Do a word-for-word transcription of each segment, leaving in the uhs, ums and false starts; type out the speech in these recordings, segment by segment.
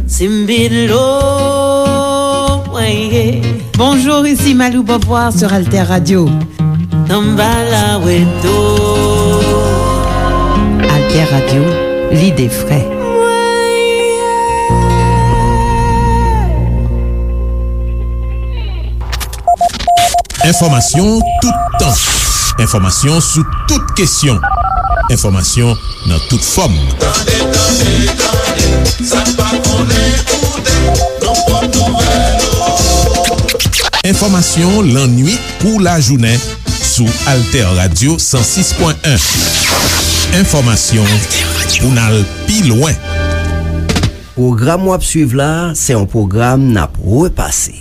Simbilo, ouais. Bonjour, ici Malou Beauvoir sur Alter Radio. Samba la weto. Alter Radio, l'idée frais. Enfòmasyon toutan. Enfòmasyon sou tout kesyon. Enfòmasyon nan tout fòm. Tande, tande, tande, sa n pa konnen koute, nan pwòp nouvèl yo. Enfòmasyon lannwit kou lajounen sou Alter Radio san sis pwen en. Enfòmasyon pou n al pi lwen. Pwogram w ap swiv la a, se yon pwogram n ap repase.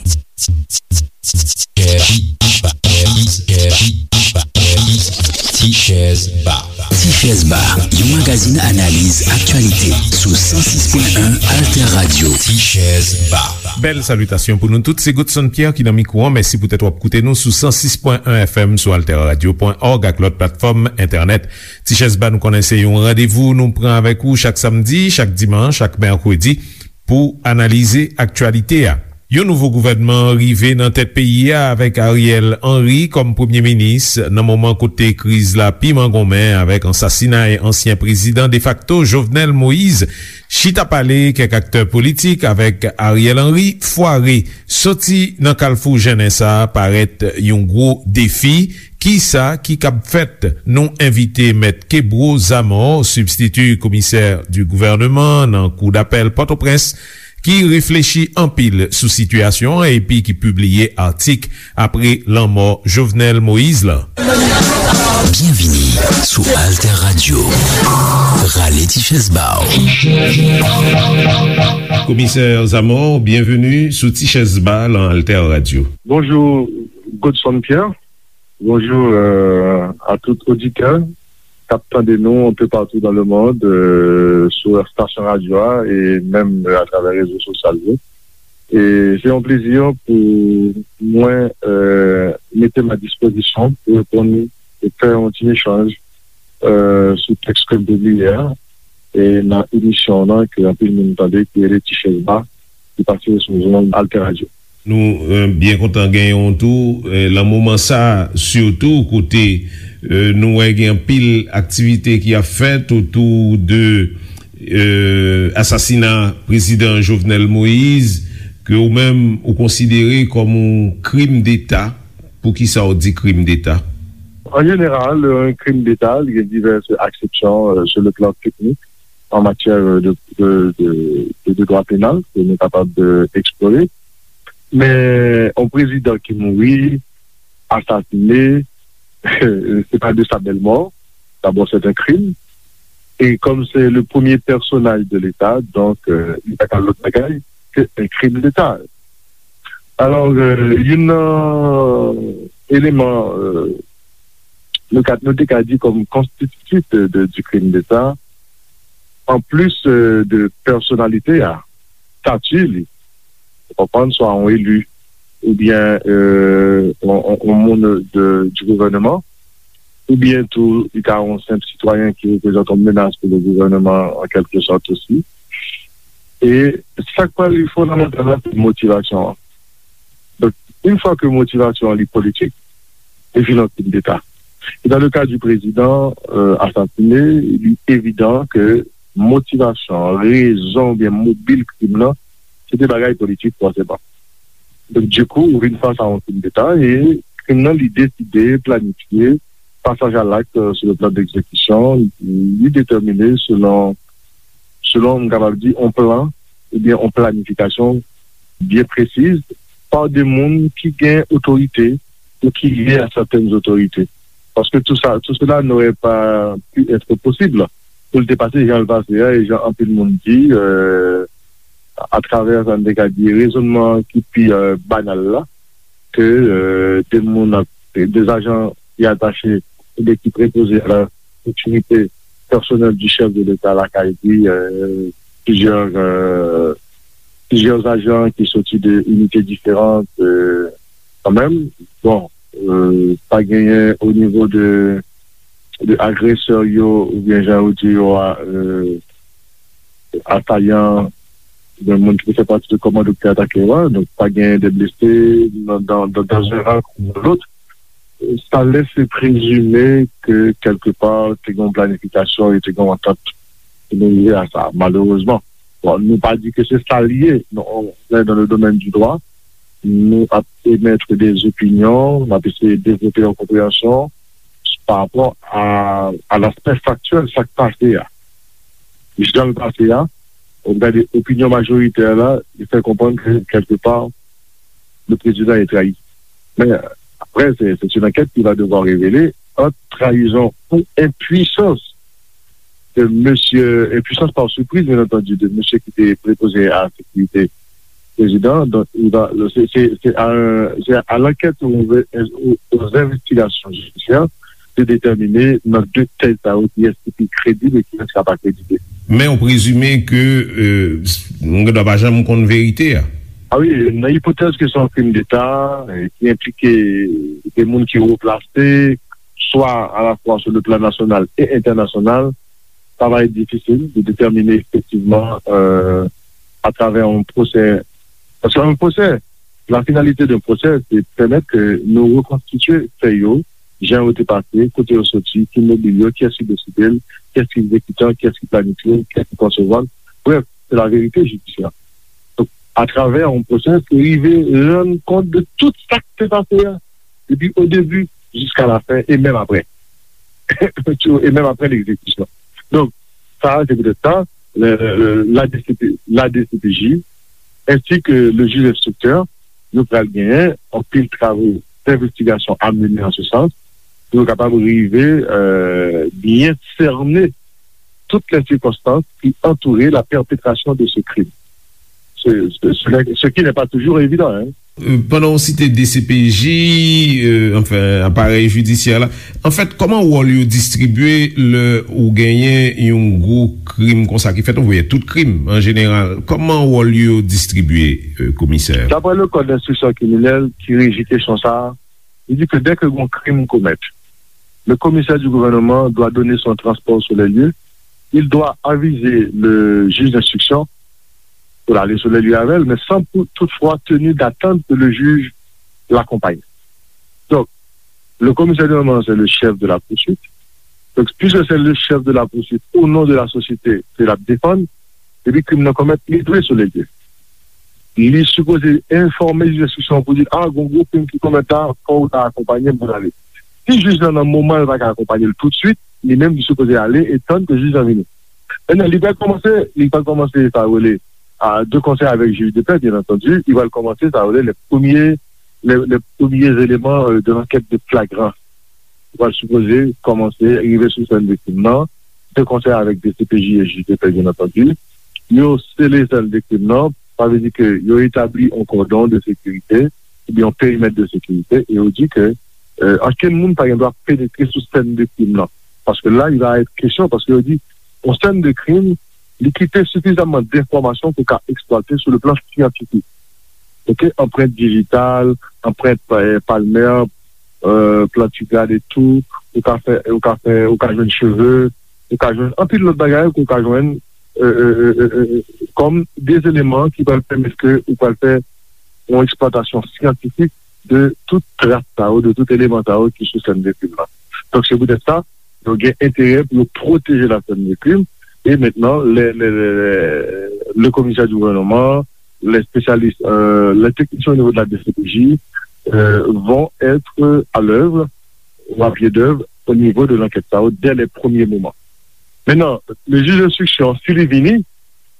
Tichèz Ba. Tichèz Ba, yon magazin analiz aktyalite sou san sis pwen en Alter Radio. Tichèz Ba. Bèl salitasyon pou nou tout. Se Godson Pierre ki nan mikwo an. Mèsi poutèt w ap koute nou sou san sis pwen en F M, sou alter radio pwen org ak lòt platfòm entènèt. Tichèz Ba, nou konnen se yon randevou nou pran avèk ou chak samdi, chak dimanch, chak mèkredi pou analize aktyalite a. Yon nouvo gouvènman rive nan tèt peyi a avèk Ariel Henry kòm premye minis nan moman kote kriz la pi mangonmen avèk ansasinay ansyen prezidan defakto Jovenel Moïse. Chita pale kèk aktè politik avèk Ariel Henry fware. Soti nan kalfou jennen sa a parèt yon gwo defi. Kisa ki kab fèt? Nou envite Mèt Kebro Zamor, sibstiti komisè di gouvèneman nan Kou dapèl Pòtoprens, ki reflechi anpil sou sitiyasyon an epi ki pibliye atik apre lanmò Jovenel Moïse la. Byenvini sou Alter Radio. Rale ti chèz ba w. Komisè Zamor, byenveni sou Ti Chèz Ba lan Alter Radio. Bonjou, Godson Pierre. Bonjou, euh, a tout oditè k ap tande nou un peu partout dans le monde, euh, sou estasyon radyo a e menm, euh, atravè rezo sosyal yo. E se yon plezi pou mwen, euh, mete m a dispozisyon pou reponn e fè yon ti echanj, euh, sou tèks ke m pibliye a, e nan emisyon w lan ke anpil moun tande, ki rele Ti Chèz Ba, ki pase sou zòn Alter Radio. Nou, euh, byen kontan genyen w tou, euh, lan moman sa a, sitou kote, euh, nou wè gen anpil aktivite ki ap fèt otou de, euh, asasina prezidan Jovenel Moïse, ke ou menm ou konsidere kòm yon krim deta. Poukisa w di krim deta? An jeneral, yon krim deta, li gen divès aksepsyon, euh, sur le plan technique, en matière de, de, de, de, de droit pénal, ke nou kapab, euh, eksplore. Men, yon prezidan ki mouri, asasine, se pa de sa bèl mò. D'abord, c'est un crime. Et comme c'est le premier personnage de l'État, donc, euh, li pa ka lòt bagay ke un crime d'État. Alò, euh, youn nan eleman, euh, nou ka, nou te ka di kòm konstititif de, de, du crime d'État, an plis, euh, de pèsonalite a, stati li, ou konprann, swa yon eli, oubyen, euh, yon, yon, yon moun de, du gouvèneman, oubyen tou, li ka yon senp sitwayen ki reprezante yon menas pou le gouvèneman, an kèlke sòt osi. E sa k pral fondamantal la, se motivasyon an. Donk, yon fwa ke motivasyon an li politik, li vin yon krim deta. E dans le cas du président, euh, assassiné, li evidan ke motivasyon, rezon oubyen mobil krim nan, se te bagay politik fòseman. Donk, dikou, ou vin fas a yon krim deta e krim nan, li deside, planifye, pasaj a lakt, euh, sur le plan d'exécution, li detèmine selon, selon, m kapab di, yon plan oubyen yon planifikasyon byen presiz pa de moun ki gen otorite ou ki lye a sètèn otorite. Paske tout sa, tout cela n'aurait pas pu être possible pou l te pase jan l pase a, e jan anpil moun di, euh, atravè sa n te ka di rezonnman ki pi, euh, banal la, ke, euh, de moun ap, de ajan ki atache oubyen ki prepoze a la sécurité personnelle du chef de l'État lakay li, euh, plizyè, euh, plizyè ajan ki soti de inite diferan, euh, kanmenm. Bon, euh, pa genyen o nivo de de agresè yo, oubyen jan yo di yo a, euh, asayan, oubyen moun ki te fè pati de kòmando ki te atake yo a. Donk, pa gen de blese nan, dans, dans, dans un ran ou dans l'autre. Sa lèse prezime ke kèlkepa te gen yon planifikasyon e te gen yon antant pou nou rive a sa, malerezman. Bon, nou pa di ke se sa l ye, non, on est dans le domaine du droit, nou ap emèt de opinyon, n ap eseye devlope yon konpreyansyon pa rapò a, a laspè faktyèl sa k pase a. Jan l pase a, ou gade opinyon majoritè la, li fè konprann ke kèlkepa, le président est trahi. Mais après, c'est c'est une enquête qui va devoir révéler entre trahison ou impuissance de monsieur, impuissance par surprise, bien entendu, de monsieur qui était préposé à la sécurité président. Donc, il va, c'est c'est- c'est à, un- c'est à l'enquête, aux, aux- aux investigations judiciaires de déterminer dans deux tèz sa yo ki est ki kredib e ki est ki pa kredib. Men ou prezime ke euh, nou gen dwa pa janm konn verite a. Ah wi, nan ipotèz ke se yon krim deta, euh, ki enplike de moun ki wo plase, swa alafwa sou le plan nasyonal e entènasyonal, sa va être difficile de déterminer effectivement euh, à travers un procès. Parce qu'un procès, la finalité d'un procès, c'est de permettre que nous reconstituer faits yo, jan yo te pase, kote yo soti, ki mobil yo, kiyès ki deside l, kiyès ki egzekitan, kiyès ki planifye l, kiyès ki konsevwa l. Bref, c'est la vérité judiciaire. Donc, à travers un procès, se rive rann kont de tout sa ki te pase a, depi o debi jiska la fen e menm apre. E menm apre l'exécution. Donc, ça, c'est peut-être ça, le- le- la D C P, la D C P J, ainsi que le juge instructeur, yo pral genyen anpil travaux d'investigation à mener en ce sens, pou yo kapab rive euh, bien cerner toutes les circonstances qui entouraient la perpétration de ce crime. Ce, ce, ce, ce qui n'est pas toujours évident. Hein. Euh, pandan w site D C P J, euh, anfen, aparèy jidisyè la, anfèt, kòman wòl yo distribye lè ou genyen yon gwo krim konsa ki fèt, ou voye tout krim an jeneral, kòman wòl yo distribye, euh, komisè? D'après le code d'instruction criminelle qui régit question ça, il dit que dès que un crime commet, le commissaire du gouvernement doit donner son transport sur les lieux, il doit aviser le juge d'instruction pour aller sur les lieux avec elle, mais sans pou- toutefois tenir d'attendre que le juge l'accompagne. Donc, le commissaire du gouvernement, c'est le chef de la poursuite. Donc, puisque c'est le chef de la poursuite, au nom de la société, c'est la défendre, epi krim nan komèt, li dwe sou lè l ye. Li sipoze enfòme jij enstriksyon pou di, a, gon gwo krim ki komèt la, fò w ta akonpanye m pou n ale. Si jij lan nan moman l pa ka akonpanye l toutswit, li menm li sipoze ale e tann ke jij lan vini. Mentnan, li pral kòmanse, li pral kòmanse sa yo rele a, de concert avec juge de paix, bien entendu, li pral kòmanse sa yo rele les premiers, les, les premiers éléments euh, de l'enquête de flagrance. Li pral sipoze kòmanse rive sou sèn viktim nan, de concert avec D C P J et juge de paix, bien entendu. Yo sele sèn viktim nan, sa vle di ke yo etabli yon kòdon de sekirite, oubyen yon perimèt de sekirite, e yo di ke euh, ankenn moun pa gen dwa penetre sou sèn de krim nan. Paske la, il va être question, paske yo di, yon sèn de krim, li kite sifizamman denfòmasyon pou ka eksplwate sou le plan syantifik. Ok, anprent dijital, anprent euh, palmè, euh, plantigrad etou, ou ka fè, ou ka fè, ou ka jwenn cheve, ou ka jwenn anpil lòt bagay ke ou ka jwenn euh, euh, euh, euh, kòm de eleman ki pral pèmèt ke ou pral fè yon eksplwatasyon syantifik de tout tras sa yo, de tout eleman sa yo ki sou sèn de krim nan. Donk, se poutèt sa, yo gen enterè pou yo pwoteje la sèn de krim. E mentnan, le, le, le, le, le komisè di gouvènman, les spécialistes, euh, les techniciens au niveau de la D C P J euh, vont être à l'œuvre ou à pied d'œuvre au niveau de l'enquête sa yo dès les premiers moments. Mentnan, le jij enstriksyon, si li vini,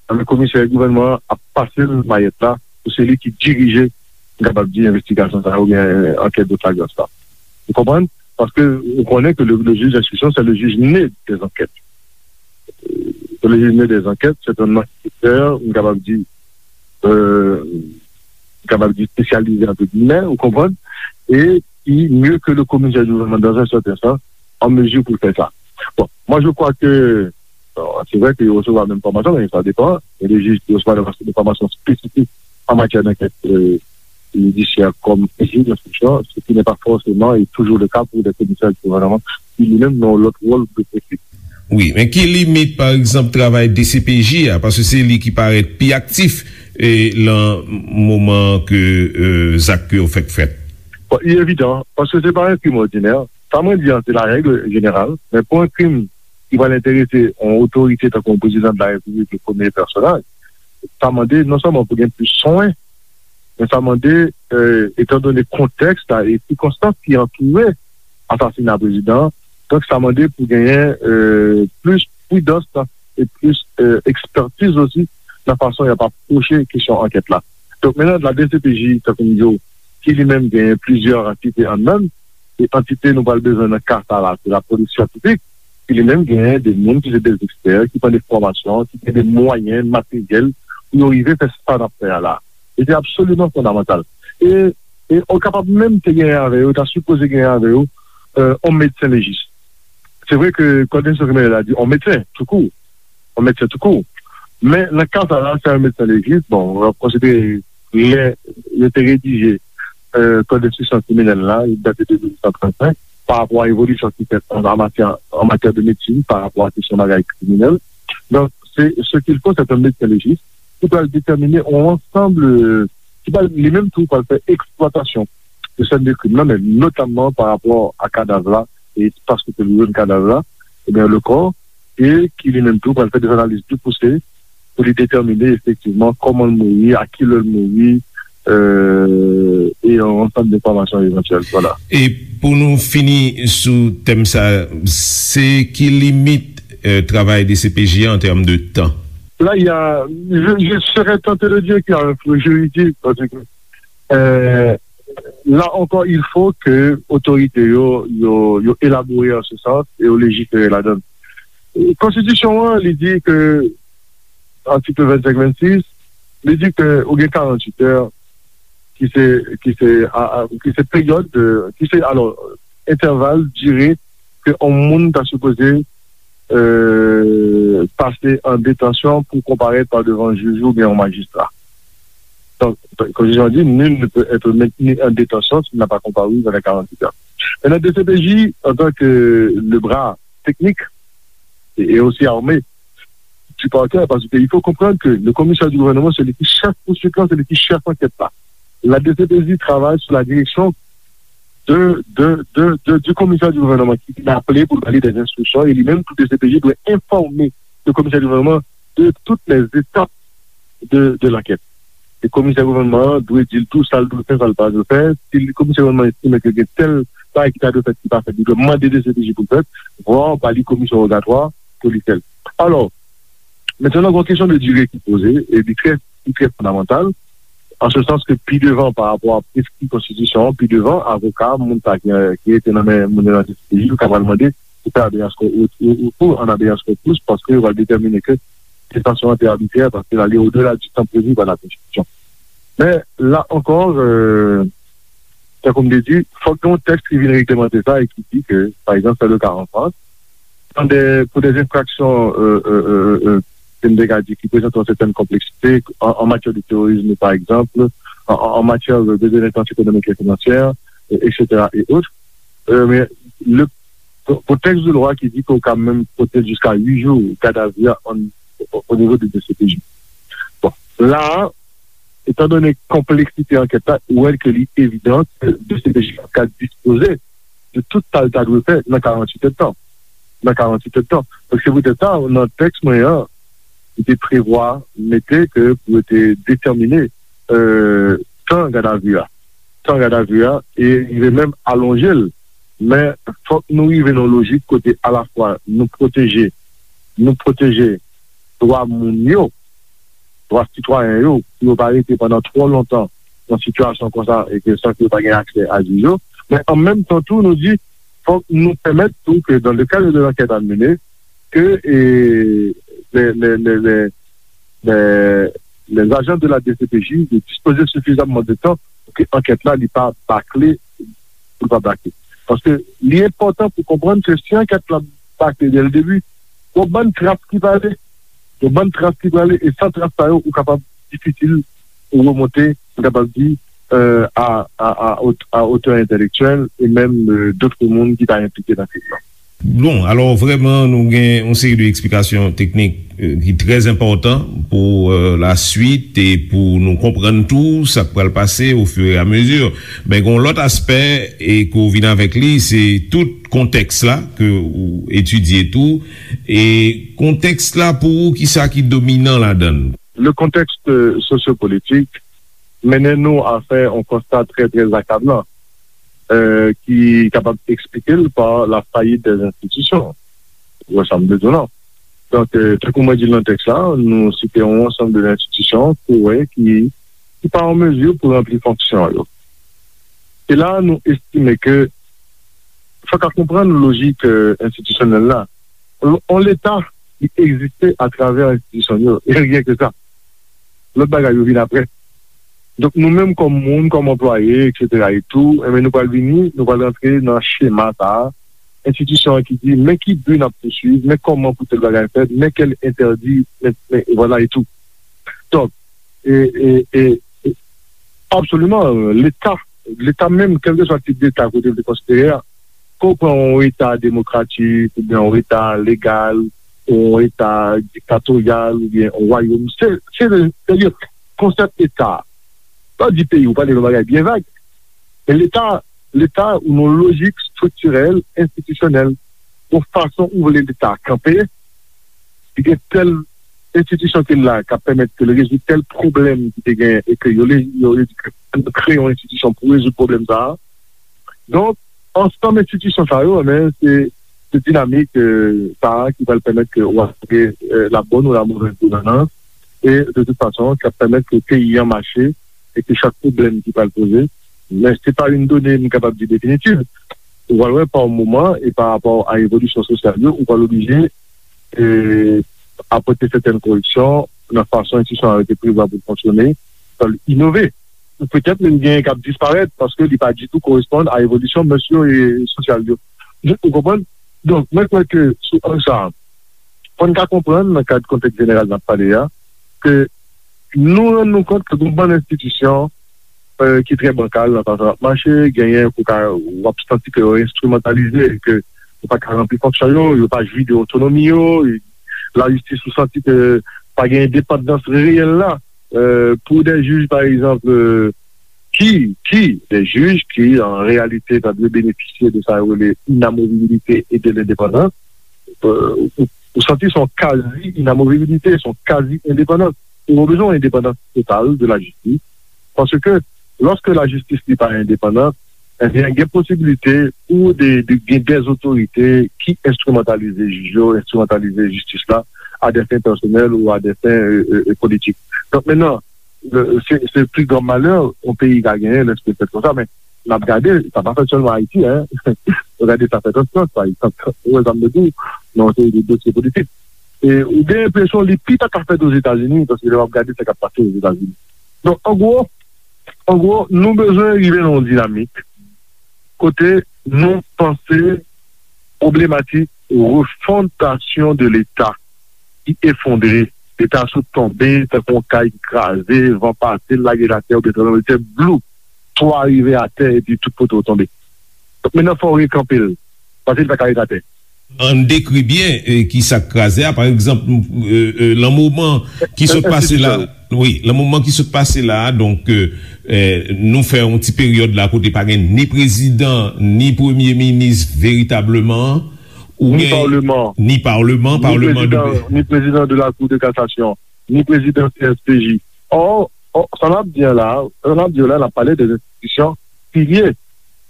anben komisè gouvènman an ap pase l mayèt la pou se li ki dirije, m kapab di, envestigasyon sa yo oubyen ankèt de flagrans la. Ou konprann? Paske ou konnen ke le, le juge d'instruction, c'est le juge né des enquêtes. Euh, le juge né des enquêtes, c'est un enquêteur, m kapab di, euh, m kapab di espesyalize, entre guillemets, ou konprann? E ki mieux que le commissaire du gouvernement dans un certain sens, en mesure pour faire ça. Bon, moi je crois que, bon, c'est vrai que yo resevwa menm fòmasyon, men sa depan. Il y a des juges qui reçoivent des formations spécifiques en matière d'enquête euh, judiciaire comme juge d'instruction, ce qui n'est pas forcément et toujours le cas pour des commissaires du gouvernement. ki li menm nan yon lòt wòl de pwofil. Wi, men ki limit, pa egzanp, travay D C P J a, paske se li ki parèt pi aktif e lan moman ke e, zak yo fèk fèt? Bon, li evidan, paske se pa yon krim òdinè. Sa mwen di an, se la règle générale, men pou yon krim ki pral enterese yon otorite tankou yon prezidan de la repiblik, le premye pèsonaj, sa mande non sèlman pou gen plis swen, men sa mande, e, etandone kontèks la e sikonstans ki antoure asasina prezidan an, donk sa mande pou genyen e, plis pridans e plis e, ekspertiz osi nan fason y ap apwoche kesyon ankèt la. Donk, menaj la D C P J, tankou m di w, ki li menm genyen plizyè antite anndan l, e antite nou pral bezwen nan ka sa la, se lapolis syantifik, ki li menm genyen de moun ki se de ekspè, ki pran de fòmasyon, ki gen de mwayen materyèl pou yo rive fè sa n ap fè a la. E se absoliman fondamantal. E, e ou kapab menm te genyen avè yo, ta sipoze genyen avè yo, e, yon medsen lejis. Se vre ke kòd enstriksyon kriminèl la di yon medsen, toukou. Yon medsen toukou. Men, nan ka sa la, se yon medsen lejis, bon, w ap konsidere lè yo te redije e, kòd enstriksyon kriminèl la, li date de mil nèf san trannsenk, pa rapò a evolisyon ki fèt an, an matyè, an matyè de medsin, pa rapò a kesyon bagay kriminèl. Donk, se ce qu'il faut, c'est un médecin légiste ki pral detèmine yon ansanm, e, ki pral, li menm tou, pral fè eksplwatasyon de sèn de krim nan, men notamman pa rapò a kadav la e espas kote l jwenn kadav la, ebyen, le corps, e ki li menm tou pral fè de analiz pi pouse pou li detèmine efektivman kòman l mouri, a ki lè l mouri, e, e yon ansanm de enfòmasyon evantyèl. Vwala. E pou nou fini sou tèm sa, se ki limit e, travay D C P J an tèm de tan? Là, il y a, je, je serais tenté de dire qu'il y a un flou juridique, parce que, euh, là encore, il faut que otorite yo, yo, yo elabore an se sans e yo lejifere ladan l. Konstitisyon an, li di ke, atik vennsenk vennsis, li di ke ou gen karannwit è, ki se, ki se, a, a, ki se peryòd, de, ki se, alò, entèval, dire ke yon moun ta sipoze e, pase an detansyon pou konparèt pa devan jij oubyen yon majistra. Donk, konstitisyon an di, nul ne peut être maintenu en détention s'il n'a pas comparu dans les quarante-huit heures. Maintenant, D C P J, en tant que le bras technique et, et aussi armé du parquet, parce qu'il faut comprendre que le commissaire du gouvernement, c'est lui qui chef poursuite, c'est lui qui chef enquête là. La D C P J travaille sous la direction de, de, de, de, du commissaire du gouvernement ki vin aple pou l ba li des instructions, e li menm tou D C P J dwe enfòme le commissaire du gouvernement de toutes les étapes de, de l'enquête. E komisè gouvènman an dwe di l tou sa l dwe fè, sa l pa dwe fè. Si komisè gouvènman an estime ke gen tèl bagay ki ta dwe fèt ki pa fèt, li dwe mande D C P J pou l fèt, vwa ba li komisyon wogatwa pou li fè l. Alò, mentnan gen yon kesyon de dire ki poze, e li trè, li trè fondamantal, an se sans ke pi devan pa rapò a preskri konstitisyon an, pi devan, avoka, moun sa ki, ki rete nan men moun yo nan D C P J, yo ka pral mande pou fè habeas corpus, ou, ou, ou an habeas corpus, paske yo pral detèmine ke detansyon an te abitrè, paske l ale odela di tan previ pa la Konstitisyon. Men, la ankò, euh, tankou m te di, fòk gen yon tèks ki vin reglemante sa e ki di ke, pa egzanp, c'est le cas en France, dans des, pour des infractions, euh, euh, euh, euh, ke m te ka di, ki prezante yon sètèn konpleksite, an, an matyè de terorisme, pa egzanp, an, an, an matyè de, de délinquance économique et financière, euh, et cetera et autres. Euh, men, le, pou, pou tèks de lwa ki di ke w ka menm pote l jiska uit jou gadavi a an, o, o nivo de D C P J. Bon, la a, etandone konpleksite ankèt la, ou wè ke li evidan ke D C P J ap ka dispoze de tout sa l ta dwe fè nan karannwit èdtan. Nan karannwit èdtan. Donk, se poutèt sa, nan tèks mwen an, li te prevwa mete ke pou yo te detèmine, euh, tan gadavi a. Tan gadavi a, e rive menm alonje l. Men, fòk nou rive nan yon lojik kote alafwa nou pwoteje, nou pwoteje dwa moun yo, dwa sitwayen yo, pou yo pa rete pandan twò lontan nan sitiyasyon konsa e ke san ke yo pa gen aksè a jij yo. Men an menm tan tou, nou di, fòk nou pèmèt tou ke dans le cadre de l'enquête à mener, ke, e, les, les, les, les, les, les agents de la D C P J yo dispoze sifizamman de tan pou ke ankèt la, li pa bakle, pou l pa bakle. Paske li enpòtan pou konprann ke si ankèt la bakle dès le début, yon bann tras ki prale, yon bann tras ki prale, e san tras sa yo, ou kapab difisil pou remonte, m kapab di, euh, a, a, a, a otè entèlektyèl e menm, euh, dòt moun ki ta enplike nan krim nan. Bon, alò, vrèman, nou gen yon seri de eksplikasyon teknik, euh, ki trè enpòtan pou, euh, la swit e pou nou konprann tou sa k pral pase ofiremezi. Men gen yon lòt aspè e ke w vin avèk li, se tout kontèks la ke w etidye tou. E kontèks la, pou ou, kisa ki dominan ladan l? Le contexte sociopolitique mennen nou a fè yon konsta trè, trè akablan, euh, ki kapab eksplike l pa la faillite des institutions. Ou wè sa m vle di w lan? Donk, euh, tankou mwen di l nan tèks la, nou site yon ansanm de enstitisyon ke w wè ki, ki pa an mezi pou ranpli fonksyon yo. E la, nou estime ke fòk a konprann lojik, euh, enstitisyonèl la. On, on Leta, li egziste atravè enstitisyon yo. E ryen ke sa. Lòt bagay yo vin apre. Donk, nou menm kòm moun, kòm anplwaye, etsetera e tou, enben, nou pral vini, nou pral rantre nan chema sa a. Enstitisyon an ki di, men ki bi n ap pouswiv, men kòman pou tèl bagay fèt, men kèl entèdi, men, men, e vwala e tou. Donk, e, e, e, e, absoliman, Leta, Leta menm, kèlkeswa tip Leta kote l te konsidere a, ke w pran yon Eta demokratik, oubyen yon Eta legal, yon Eta diktatoryal, oubyen yon wayòm, se, se, se, se konsèp Eta. Lè w di peyi, ou pale yon bagay byen vag. Men Leta, Leta, ou nan lojik estriktirèl, enstitisyonèl, yon fason ou vle Leta kanpe, li gen tèl enstitisyon ki la k ap pèmèt ke l rezoud tèl pwoblèm ki te gen e ke yo le, yo le di ke nou kreye yon enstitisyon pou rezoud pwoblèm sa a. Donk, ansanm enstitisyon sa yo, men, se, se dinamik, euh, sa a ki pral pèmèt ke w ap gen, euh, la bonne ou la mauvaise gouvernance, e de tout fason, k ap pèmèt ke peyi an mache e ke chak pwoblèm ki pral poze, men se pa yon done m kapab di definitiv. Ou pral wè pa yon moman e pa rapò a evolisyon sosyal yo, ou pral oblije, e, apòte sètèn koreksyon nan fason enstitisyon an rete prevwa pou l fonksyone, pou l inove. Ou petèt menm gen k ap disparèt paske li pa ditou koresponn a evolisyon mès yo e sosyal yo. Ou konprann? Donk, mwen kwè ke sou ang sa a, fò n ka konprann nan kad kontèks jeneral n ap pale a, ke nou rann nou kont ke gen yon bann enstitisyon, euh, ki trè bankal nan fason y ap mache, genyen ke w ka, w ap santi ke yo enstrimantalize, ke yo pa ka ranpli fonksyon yo, yo pa jwi de otonomi yo, lajistis ou santi ke pa gen endepandans reyèl la, euh, pou de jij, pa egzanp, euh, ki, ki, de jij ki, an reyalite, ta dwe benefisye de sa yo rele inamovibilite e de lendepandans, euh, ou, ou santi se yon kazi inamovibilite, se yon kazi endepandans. Ou bezwen yon endepandans total de lajistis, paske lòske lajistis li pa endepandan, ebyen, gen posibilite pou de, de, gen de otorite ki enstrimantalize jij yo, enstrimantalize jistis la, a des fins personnelles ou a des fins, euh, euh, euh, politiques. Donk, mentnan, le, se, se pli gran malè yon peyi ka genyen lèske l fèt konsa, men n ap gade, sa pa fèt sèlman Ayiti, en. Nou gade sa fèt an Frans, pa egzanp. Ou wè sa m vle di w, nan yon seri de dosye politik. E ou gen enpresyon li pi ta ka fèt Ozetazini, paske lè w ap gade sa k ap pase Ozetazini. Donk, an gwo, an gwo, nou bezwen rive nan yon dinamik kote nou panse pwoblematik refondasyon de Leta ki efondre. Leta sot tonbe tankou yon kay ki kraze, van pase l, lage l atè, oubyen tranblemanntè, blou, twa rive atè, epi tout poto tonbe. Donk, mentnan, fò w rekanpe l, paske li pa ka ret atè. Ann dekri byen, e, ki sa k kraze a. Pa egzanp, e, e, lan moman ki sot pase la, wi, lan moman ki sot pase la, donk, e, e, nou fè yon ti peryòd la kote pa gen ni prezidan, ni premye minis veritableman, ou ni gen, paleman, ni paleman, ni paleman de prezidan, ni prezidan de la Cour de cassation, ni prezidan C S P J. Or, or, sa n ap di an la, sa n ap di an la, n ap pale de enstitisyon pilye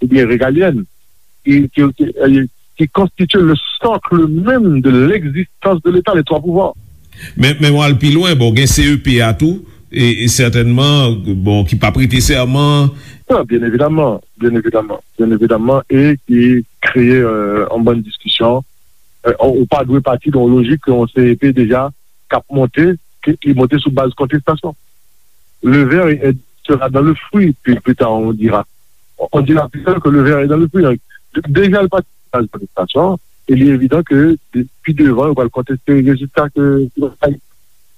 oubyen regalyèn ki, ki, ki, ki konstitye le socle même de l'existence de l'État, les trois pouvoirs. Men, men w al pi lwen, bon, gen C E P a tou, e, e sètènman, bon, ki pa prete sèman. Non, byen evidaman, byen evidaman, byen evidaman, e ki kreye, euh, yon bann diskisyon. Euh, ou pa dwe pati de yon lojik ke yon C E P deja k ap monte, ki, ki monte sou baz kontestasyon. Le ver est, sera dans le fruit, puis plus tard on dira. On dira plus tard que le ver est dans le fruit. Deja, l pati sou baz kontestasyon, e li evidan ke de-, pi devan, yo pral konteste rezilta ke,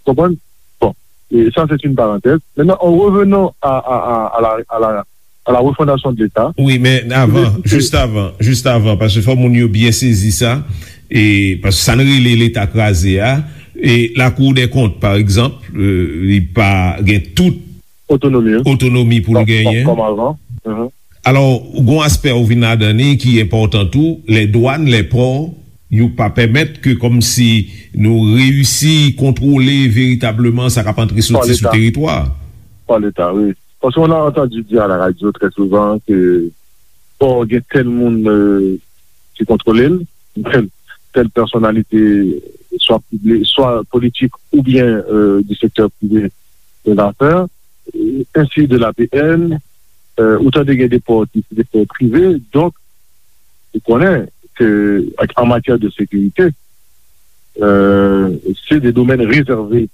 konprann? Bon, et ça, c'est une parenthèse. Maintenant, en revenant à, à, à, à la, à la, à la refondation de l'État. Wi, men avan, jis avan, jis avan, paske fò moun yo byen sezi sa, e paske sa n rele Leta kraze a, e Lakou dè Kont, pa egzanp, e, li pa gen tout otonomi, wi, otonomi pou l genyen. Kòm avan. Mhm. Alò, gon aspè ou vin ladan li ki enpòtan tou, lè dwàn, lè pò, yo pa pèmèt ke kòmsi nou reyisi kontwole veritableman sa k ap antre soti sou teritwa. Pa Leta, wi. Parce qu'on a entendu dire à la radio très souvent que pò gen tèl moun, euh, ki kontwole l, tèl, tèl pèsonalite, swa pibli-, swa politik oubyen, euh, du secteur privé de l'affaire, euh, ainsi de l'A P N, euh, ou tande gen de pò ki se de pò prive, donk, ou konnen ke ak, an matyè de sekirite, euh, se de domèn rezève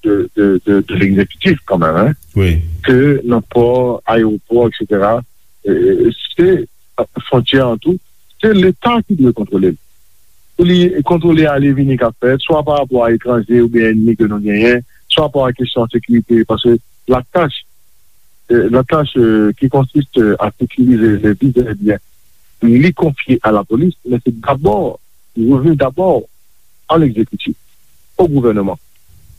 de, de, de, de l'exécutif kanmenm, hein, wi, ke nan pò, ayewopò, et cetera, euh, se, euh, fwontyè an tou, se Leta ki dwe kontwole l. Pou li kontwole ale vini k ap fèt, swa pa rapò a etranje oubyen ènmi ke nou genyen, swa pa a kesyon sekirite, paske la tâche, euh, la tâche, euh, qui consiste à sécuriser les biens et biens, li konfye à la police, mais c'est d'abord, il revient d'abord à l'exécutif, au gouvernement.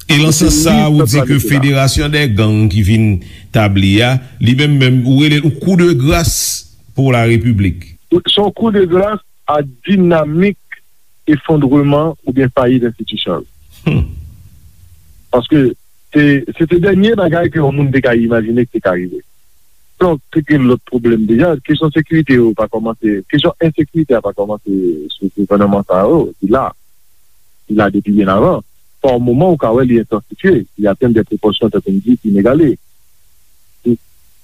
E nan sans sa, ou di ke Federasyon dè Gang ki vin tabli a, li menm menm, ou rele l yon kou de gras pou la Repiblik. Se yon kou de gras a dinamik efondreman oubyen fayit enstitisyon yo. Hmm. Paske se, se te dènye bagay ke yon moun te ka imajine ki te ka rive. Donk, te gen lòt pwoblèm deja. Kesyon sekirite yo pa kòmanse, kesyon ensekirite a pa kòmanse sou gouvènman sa yo, li la. Li la depi byen avan. Pa moman, ou ka wè li entansifye, li atenn de pwopòsyon, tankou m di, inegale. Li,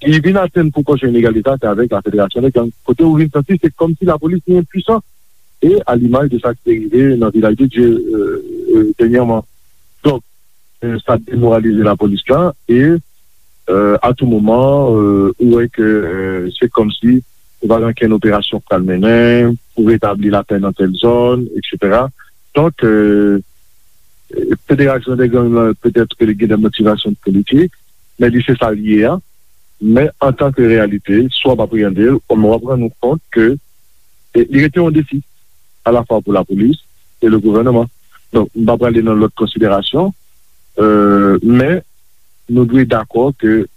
li vin atenn pwopòsyon inegale sa, se avèk la Federasyon dè Gang. Kote ou vin santi, se kòmsi lapolis li enpwisan. E a limaj de sa ki te rive nan Vilaj de Dye, euh, euh, dènyèman. Donk, euh, sa demoralize lapolis la e, euh, a tou moman, euh, ou wè ke, euh, se kòmsi ou pa gen okenn operasyon k pral mennen pou retabli lapè nan tèl zòn, et cetera. Donk, euh, Federasyon dè Gang lan, petèt ke li gen de motivasyon politik, men li se sa l ye a. Men antanke reyalite, si w ap apreyande l, w ap rann ou kont ke, e, li rete yon defi, alafwa pou lapolis e le gouvènman. Donk, m pa prale nan lòt konsiderasyon, euh, men nou dwe dakò ke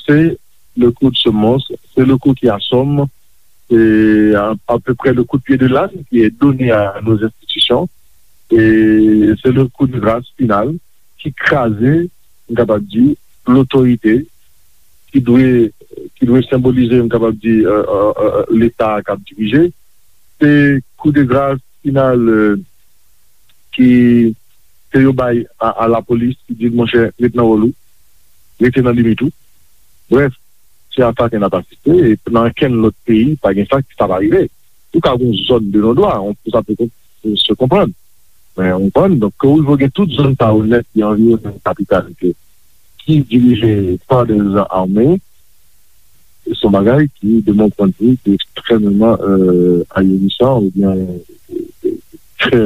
c'est le coup de semonce, c'est le coup qui assomme, c'est à, à peu près le coup de pied de l'âne qui est donné à nos institutions, et c'est le coup de grâce final ki kraze, m kapab di, lotorite ki dwe, ki dwe senbolize, m kapab di, euh, euh, euh, Leta k ap dirije. Se kou de gras final, euh, ki, ke yo bay a, a lapolis, ki di l, monchè, ret nan wòl ou, rete nan limit ou. Brèf, se a sa ke n ap asiste, e nan okenn lòt peyi, pa gen sa, sa pa rive. Ou ka gen yon zòn de non-dwa, on, sa pe kon-, se konprann. Men, ou konprann, donk, ke ou rive gen tout zòn sa yo nèt ki anviwonnen kapital, ke, ki dirije pa de zam ame, se yon bagay ki, de mon point de vue, ki ekstrèmeman, euh, ahurissant oubyen, euh, trè,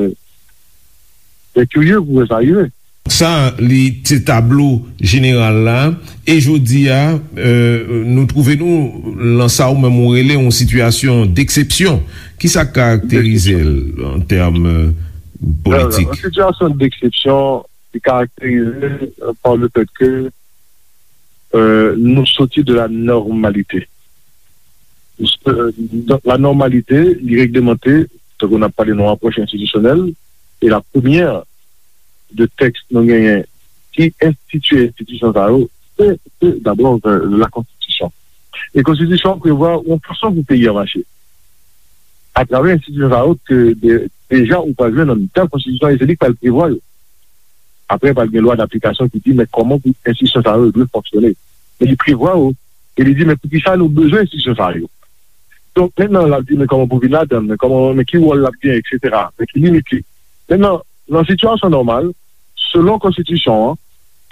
trè kirye pou wè sa rive. Sa, li se tablo jeneral la. E jodi a, euh, nou twouve nou lan sa ou menm ou rele yon sitiyasyon deksepsyon. Kisa k karakterize l an tèm, euh, politik? Yon sitiyasyon deksepsyon ki karakterize, euh, par le fait que, euh, nou soti de la normalité. Euh, la normalité, li reglemante, tankou n ap pale nan apwòch enstitisyonèl, e la premyè de tèks nou genyen ki enstitye enstitisyon sa yo, se, se dabò, euh, la konstitisyon. E konstitisyon an prevwa yon fason pou peyi a mache. Atravè enstitisyon sa yo, ke de-, deja ou pral jwenn nan mitan konstitisyon, e se li k pral prevwa yo. Apre, pral gen lwa daplikasyon ki di, men kòman pou enstitisyon sa yo dwe fonksyone. Men li prevwa yo, e li di, men poukisa nou bezwen enstitisyon sa yo? Donk, mentnan, l ap di, men kòman pou vin ladan l, men kòman, men ki wòl l ap genyen, et cetera, men ki limit li. Mentnan, nan sitiyasyon nòmal, selon konstitisyon an,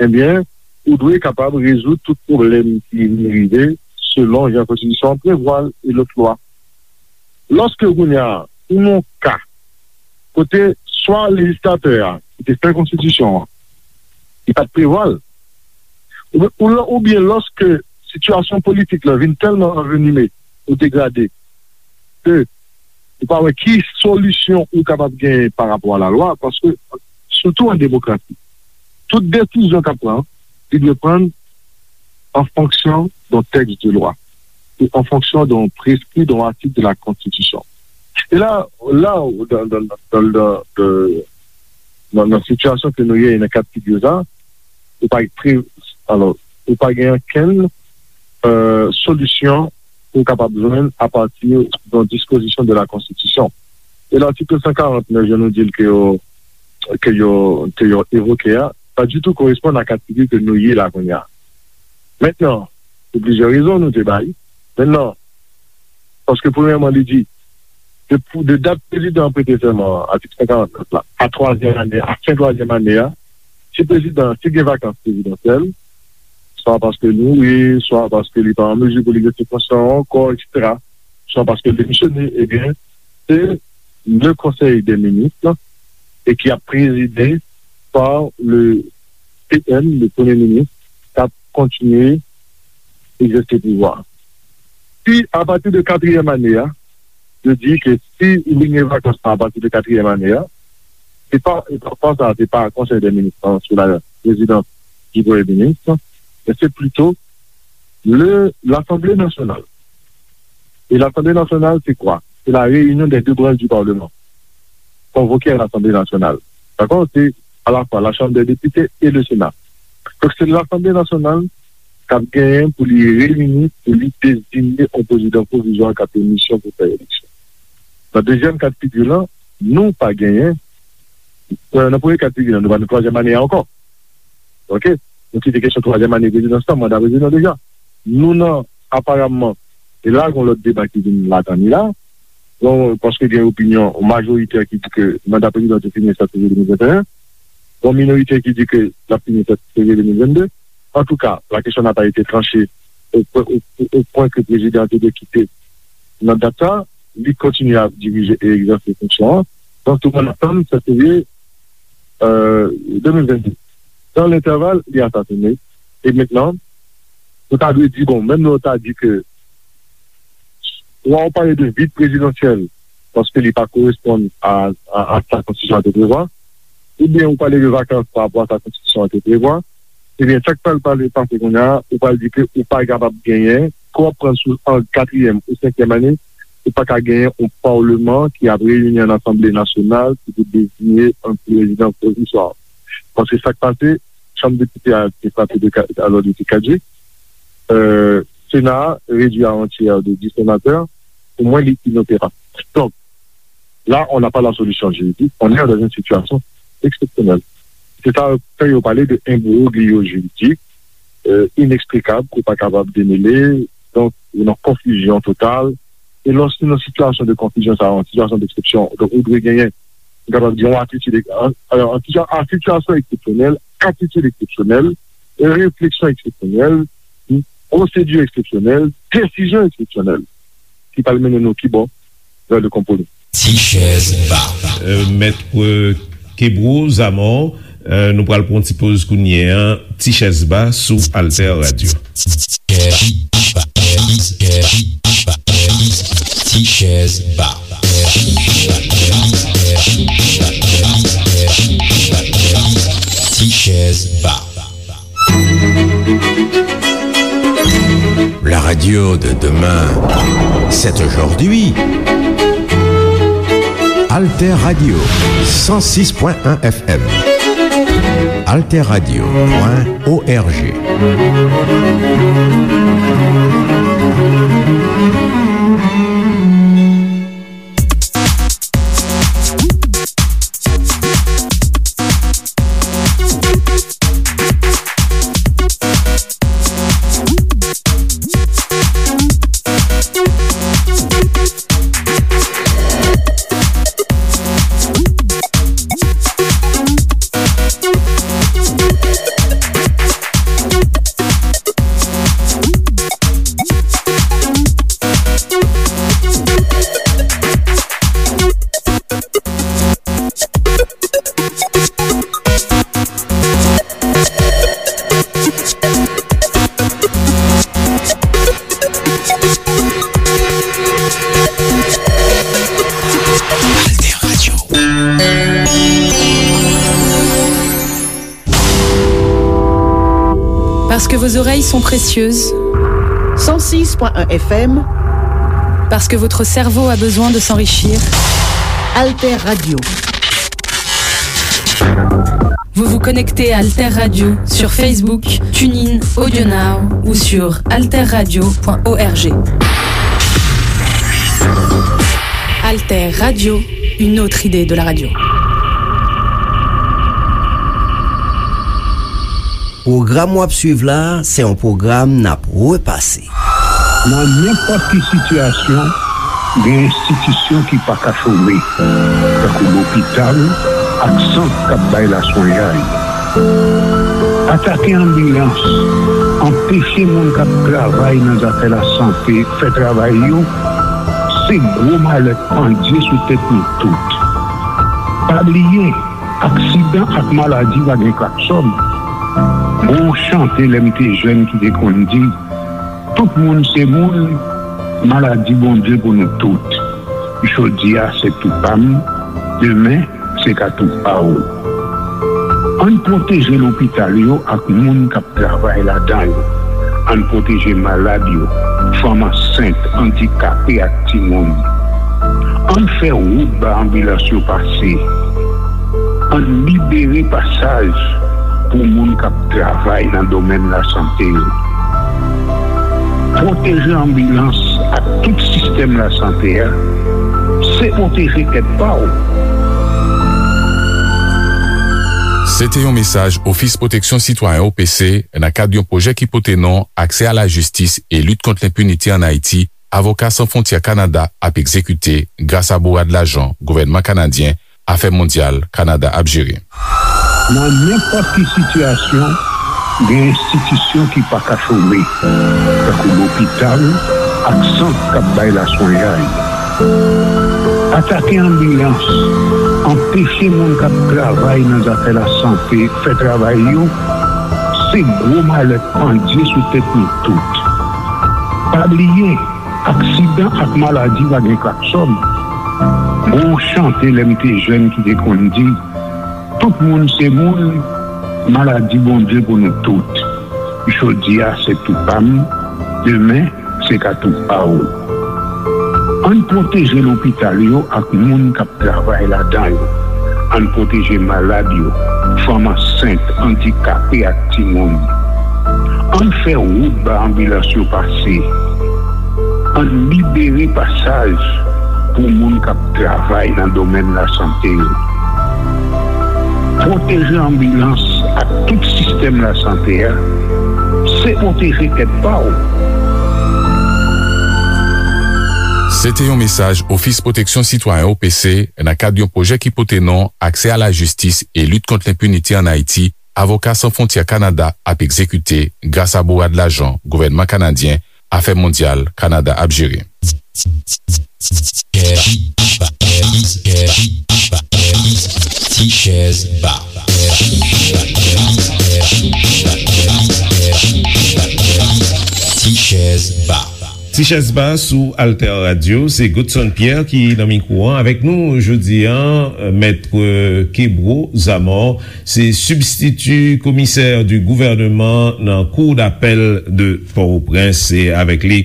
ebyen, ou dwe kapab rezoud tout pwoblèm ki vin rive selon jan konstitisyon an prevwa l e lòt lwa. Lòske kounye a, ou nan yon ka kote swa lejislatè a ki te fè konstitisyon an, li pa t prevwa l, oubyen, ou lò-, oubyen lòske sitiyasyon politik la vin tèlman anvenime ou degrade ke ou pa wè ki solisyon ou kapab genyen pa rapò a lalwa, paske, sitou an demokrasi, tout desizyon k ap pran, li dwe pran an fonksyon d'un texte de loi e an fonksyon d'un prescrit, d'un article de la Constitution. E la, la, dan, dan, dan, dan, dan, nan, nan sitiyasyon ke nou ye, nan ka de figi sa, ou pa pre, alò, ou pa gen okenn, euh, solisyon ou kapab jwenn apati d'un dispozisyon de la Konstitisyon. E latik san karant nèf, jan nou di l ke yo, ke yo, ke yo evoke a, pa ditou koresponn a ka de figi ke nou ye la kounye a. Mentnan, pou plizyè rezon nou te bay. Mentnan, paske premyèman, li di, de, pou, de dat prezidan an prete sèman an, atik san karant nèf la, a twazyèm ane, a fen twazyèm ane a, si prezidan, si gen vakans prezidansyèl, swa paske l mouri, swa paske li pa an mezi pou li egzèse fonksyon an ankò, etsetera, swa paske l demisyone, ebyen, se le Conseil des ministres, e ki ap prezide pa le P M, le Premye Minis, k ap kontinye egzèse pouvwa. Si, apati de katriyèm ane a, yo di ke si li gen vakans lan apati de katriyèm ane a, se pa, e pa, pa sa, se pa Konsèy dè Minis lan sou la prezidans di Premye Minis, men se plito le, Lasanble Nasyonal. E Lasanble Nasyonal, se kwa? Se la réunion des deux branches du Parlement. Convoqué à l'Assemblée nationale. Dakò? Se alafwa la Chambre des députés et le Sénat. Donk, se Lasanble Nasyonal k ap genyen pou li reyini, pou li deziye yon prezidan pwovizwa k ap gen misyon pou fè eleksyon. Nan dezyèm ka de figi lan, nou pa genyen, euh, nan premye ka de figi lan, nou pa nan twazyèm ane a ankò. Oke? Nou kite kesyon twazyèm ane prezidans lan, manda prezidan deja. Nou nan, aparamman, e la, gon lòt deba ki vin ladan li la. Bon, paske gen opinyon majorite ki di ke manda prezidan te fini sèt fevriye de mil venteyen. Gon minorite ki di ke l ap fini sèt fevriye de mil vennde. Antouka, la kesyon n'a pas été tranchée au, au, au, au point ke prezidan an te dwe kite nan dat sa. Li kontinye ap dirije e egzèse fonksyon an. Donk, tout moun ap tann sèt fevriye, euh, de mil vennde. Dans l'intervalle, li asasine. E mentnan, nou ta dwe di, bon, menm lè w ta di ke, swa w pale de vid prezidansyèl, paske li pa koresponn a, a, a sa konstitisyon an te prevwa, oubyen ou pale de vakans pa rapò a sa konstitisyon an te prevwa, ebyen, sa k pral pale pase kounye a, ou pral di ke ou pa kapab genyen, ke w ap pran sou an katriyèm ou senkyèm ane, ou pa ka genyen yon palman ki ap reyini an asanble nasyonal ki pou deziye yon prezidan pwovizwa. Paske sa k pase, chanm depite a te frape de ka-, alò, li te kadjik. Euh, Sena a redui a yon tyè de dis senatè. Pou mwen, li inoperab. Donk, là, on n'a pas la solution juridique, on est dans une situation exceptionnelle. Se sa fè yo pale de imbroglio juridik, euh, ineksplikab, ke w pa kapab demele, donk, ou nan konfizyon total. E lòske nan sitiyasyon de konfizyon sa, an sitiyasyon de eksepsyon, donk, ou dwe genyen, nou kapab di, yon atitid, an, an, an sitiyasyon eksepsyonèl, atitid eksepsyonèl, refleksyon eksepsyonèl, pwosedi eksepsyonèl, desizyon eksepsyonèl, ki pral mennen nou ki bò? Vè le konpwomi. Ti chèz ba. Euh, Mèt, euh, Kebro Zamò, euh, nou pral pran yon ti poz kounye a. Ti chèz ba sou Alter Radio. Ti chèz ba. Ti chèz ba. La radio de demain, c'est aujourd'hui. Alter Radio, cent six point un F M. Alter Radio point O R G. Parce que vos oreilles sont précieuses. Cent six point un F M. Parce que votre cerveau a besoin de s'enrichir. Alter Radio. Vous vous connectez à Alter Radio sur Facebook, TuneIn, AudioNow ou sur alterradio point org. Alter Radio, une autre idée de la radio. Pwogram w ap swiv la, se yon pwogram n ap repase. Nan nenpòt ki sitiyasyon, gen enstitisyon ki pa ka chome, tankou lopital ak sant k ap bay laswenyay. Atake anbilans, anpeche moun k ap travay nan zafè lasante fè travay yo, se gwo malè k pandye sou tèt nou tout. Pa bliye, aksidan ak maladi pa gen klaksòn. Gon yon chante lè m te jèn ki te konn di, tout moun se moun, maladi Bondye pou nou tout. Jodi a se tou pa m, demen se ka tou pa w. Ann pwoteje lopital yo ak moun k ap travay ladan yo. Ann pwoteje malad yo, fanm ansent, andikape ak timoun. Ann fè wout ba anbilans yo pase. Ann libere pasaj pou moun k ap travay nan domèn lasante yo. Pwoteje anbilans ak tout sistèm lasante a, se pwoteje tèt pa w. Se te yon mesaj Ofis Pwoteksyon Sitwayen, O P C, nan kad yon pwojè ki pote non Aksè a la jistis e lit kont lenpinite ann Ayiti, Avoka San Fwontyè Kanada ap egzekite gras a bourad lajan gouvènman kanadyen Afè Mondyal Kanada ap jere. Nan nenpòt ki sitiyasyon, gen enstitisyon ki pa ka chome, tankou lopital ak sant k ap bay laswenyay. Atake anbilans, anpeche moun k ap travay nan zafè lasante fè travay yo, se gwo malè k pandye sou tèt nou tout. Pa bliye, aksidan ak maladi pa gen klaksòn. Gon yon chante lè m te jèn ki te konn di, tout moun se moun, maladi Bondye pou nou tout. Jodi a se tou pa m, demen se ka tou pa w. Ann pwoteje lopital yo ak moun k ap travay ladan yo. Ann pwoteje malad yo, fanm ansent, andikape ak timoun. Ann fè wout ba anbilans yo pase. Ann libere pasaj pou moun k ap travay nan domèn lasante yo. Pwoteje anbilans ak tout sistèm lasante a, se pwoteje tèt pa w. Se te yon mesaj Ofis Pwoteksyon Sitwayen, O P C, nan kad yon pwojè ki pote non Aksè a la jistis e lit kont lenpinite ann Ayiti, Avoka San Fwontyè Kanada ap egzekite gras a bourad lajan gouvènman kanadyen Afè Mondyal Kanada ap jere. Ti chèz ba. Ti chèz ba. Ti chèz ba sou Alter Radio, se Godson Pierre ki nan mikwo an. Avèk nou jodi a, Mèt Kebro Zamor, se sibstiti komisè di gouvèneman nan Cour d'appel de Port-au-Prince. Se avèk li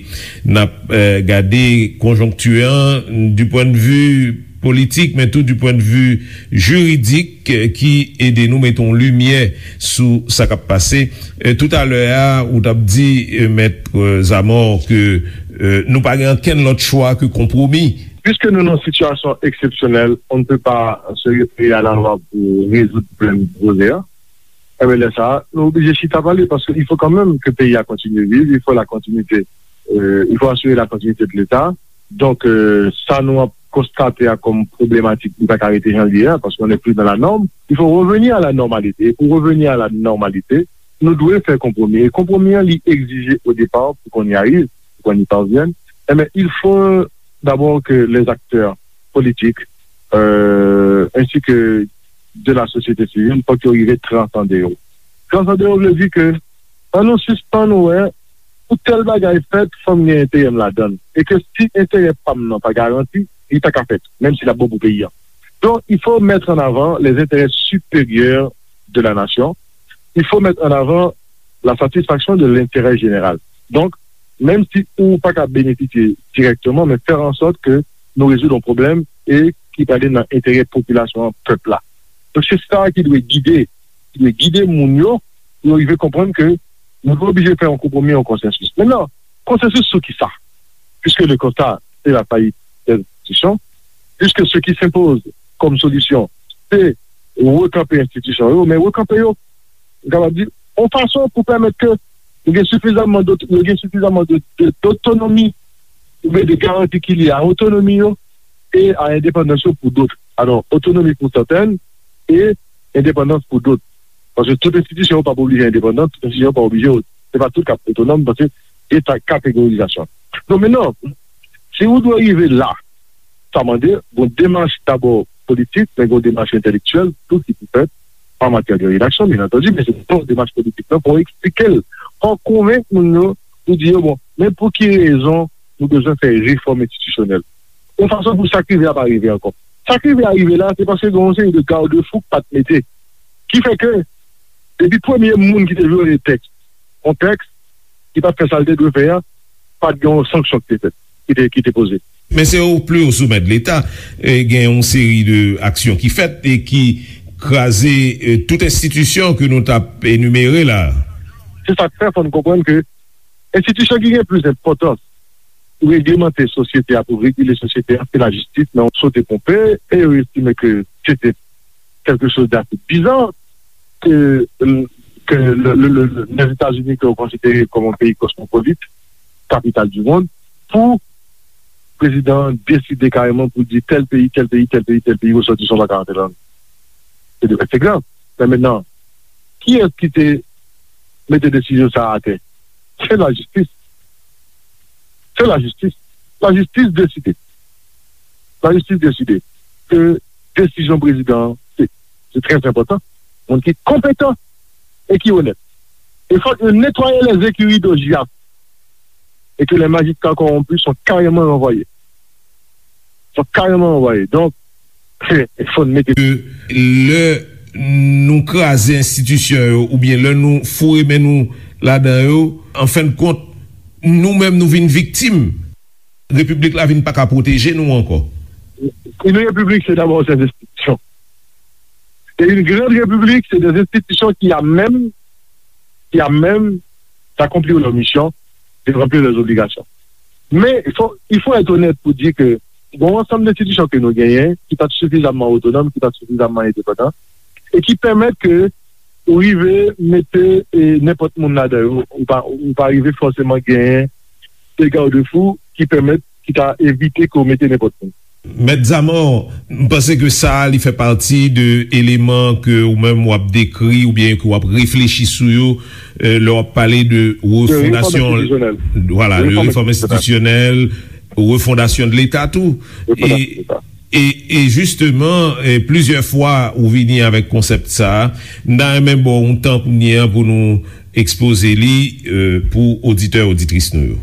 n ap, eh, gade konjonkti an du point de vue politik, men tou du point de vue jiridik, eh, ki ede nou mete yon limyè sou sa k ap pase. Eh, toutalè a, ou t ap di, eh, Mèt, eh, Zamor, ke, eh, nou pa gen ankenn lòt chwa ke konpwomi. Puisque nous, dans une situation exceptionnelle, on ne peut pas se référer à la loi pour résoudre problème poze a. Enben, lè sa a, nou oblije chita pale, paske il faut quand même que peyi a kontinye viv, il faut la continuité, euh, il faut assurer la continuité de l'État. Donk, euh, sa nou ap konstate a kòm pwoblematik, li pa ka rete jan l ye a, paske on n'est plus dans la norme. Il faut revenir à la normalité. E pou reveni a la nòmalite, nou dwe fè konpwomi. E konpwomi an, li egzije au départ, pour qu'on y arrive, pour qu'on y parvienne, eh bien, il faut d'abord que les acteurs politiques, euh, ainsi que de la société civile, fòk yo rive transande yo. Transande yo vle di ke, ann nou sispann wè, pou tèl bagay fèt, fò m gen enterè m ladan l. E ke si enterè pa m nan pa garanti, li pa ka fèt, menm si l ap bon pou peyi a. Donc, il faut mettre en avant les intérêts supérieurs de la nation. Il faut mettre en avant la satisfaction de l'intérêt général. Donk, menm si ou pa ka benefisye dirèkteman, men fè an sòt ke nou rezoud yon pwoblèm e ki prale nan enterè popilasyon an, pèp la. Donk, se sa ki dwe gide, ki dwe gide moun yo, pou yo rive konprann ke nou oblije fè yon konpwomi, yon konsansis. Mentnan, konsansis sou ki sa? Puisque le constat, c'est la faillite des institutions, puisque ce qui s'impose comme solution, c'est rekanpe enstitisyon yo, men rekanpe yo, m kapab di, yon fason pou pèmèt ke yo gen sifizamman dot-, yo gen sifizamman de, de, dotonomi, oubyen de garanti ki lye a otonomi yo e a endepandans yo pou dot. Alò, otonomi pou sètèn e endepandans pou dot. Paske tout enstitisyon yo pa oblije endepandan, tout enstitisyon yo pa oblije, se pa tout k ap otonòm, paske gen sa kategorizasyon. Donk, mentnan, si ou dwe rive la, sa mande yon demach dabò politik, men yon demach entèlektyèl tou ki pou fèt an matyè de redaksyon, byen antandi, men se yon demach politik la pou eksplike l, pou konvenk moun yo, pou di yo, bon, men pou ki rezon nou bezwen fè refòm enstitisyonèl. Yon fason pou sa k rive a pa rive ankò. Sa k rive a rive la, se paske gen yon seri de garde-fou k pa t mete. Ki fè ke, depi premye moun ki te vyole tèks, yon tèks ki pa t fè sa l te dwe fè a, pa t gen yon sanksyon ki te fèt, ki te, ki te poze. Men se o pli o somè de Leta, e, gen yon seri de aksyon ki fèt e ki kraze, e, tout enstitisyon ke nou t ap enimere la. Se sa k fè, fò n konprann ke enstitisyon ki gen plis enpòtans pou reglemante sosyete a, pou regile sosyete a, se lajistis, men yo sote ponpe e yo estime ke se te quelque chose d'assez bizarre que, euh, que le, le, le, le, les États-Unis, que vous considérez comme un pays cosmopolite, capitale du monde, pou prezidan an deside kareman pou di tèl peyi, tèl peyi, tèl peyi, tèl peyi, resòtisan pa ka antre ladan. Se de, se grav. Men mentnan, kiyès ki te mete desizyon sa a atè? Se lajistis. Se lajistis. Lajistis deside. Lajistis deside ke desizyon prezidan an, se, se trè enpòtan. Moun ki konpetan e ki onèt. E fòk yo netwaye les écuries de Giaf. Et que les magistrats corrompus sont carrément renvoyés. Sont carrément renvoyés. Donk, fò n mete. Lè nou kraze enstitisyon yo, oubyen lè nou foure men nou ladan yo, an fen de kont, nou menm nou vin viktim. Repiblik la vin pa ka pwoteje nou ankò. Une république, c'est d'abord ses institutions. Et une grande république, c'est des institutions qui, à même, qui, à même d'accomplir leur mission, de remplir leurs obligations. Mais il faut, il faut être honnête pour dire que bon, ansanm enstitisyon ke nou genyen, ki pa t sifizamman otonòm, ki pa t sifizamman endepandan, e ki pèmèt ke ou rive mete, e, nenpòt moun ladan yo, ou pa, ou pa rive fòseman genyen de garde-fou ki pèmèt, ki ta evite ke w mete nenpòt moun. Mèt Zamò, m panse ke sa a, li fè pati de eleman ke ou menm w ap dekri oubyen ke w ap reflechi sou yo, e, lè w ap pale de refondasyon, vwala, de refòm enstitisyonèl, refondasyon de Leta tou. E, e, e jisteman, e, plizyè fwa ou vini avèk konsèp sa a. M ta renmen ba w yon tan kounye a pou nou ekspoze li, e, pou oditè, oditris nou yo.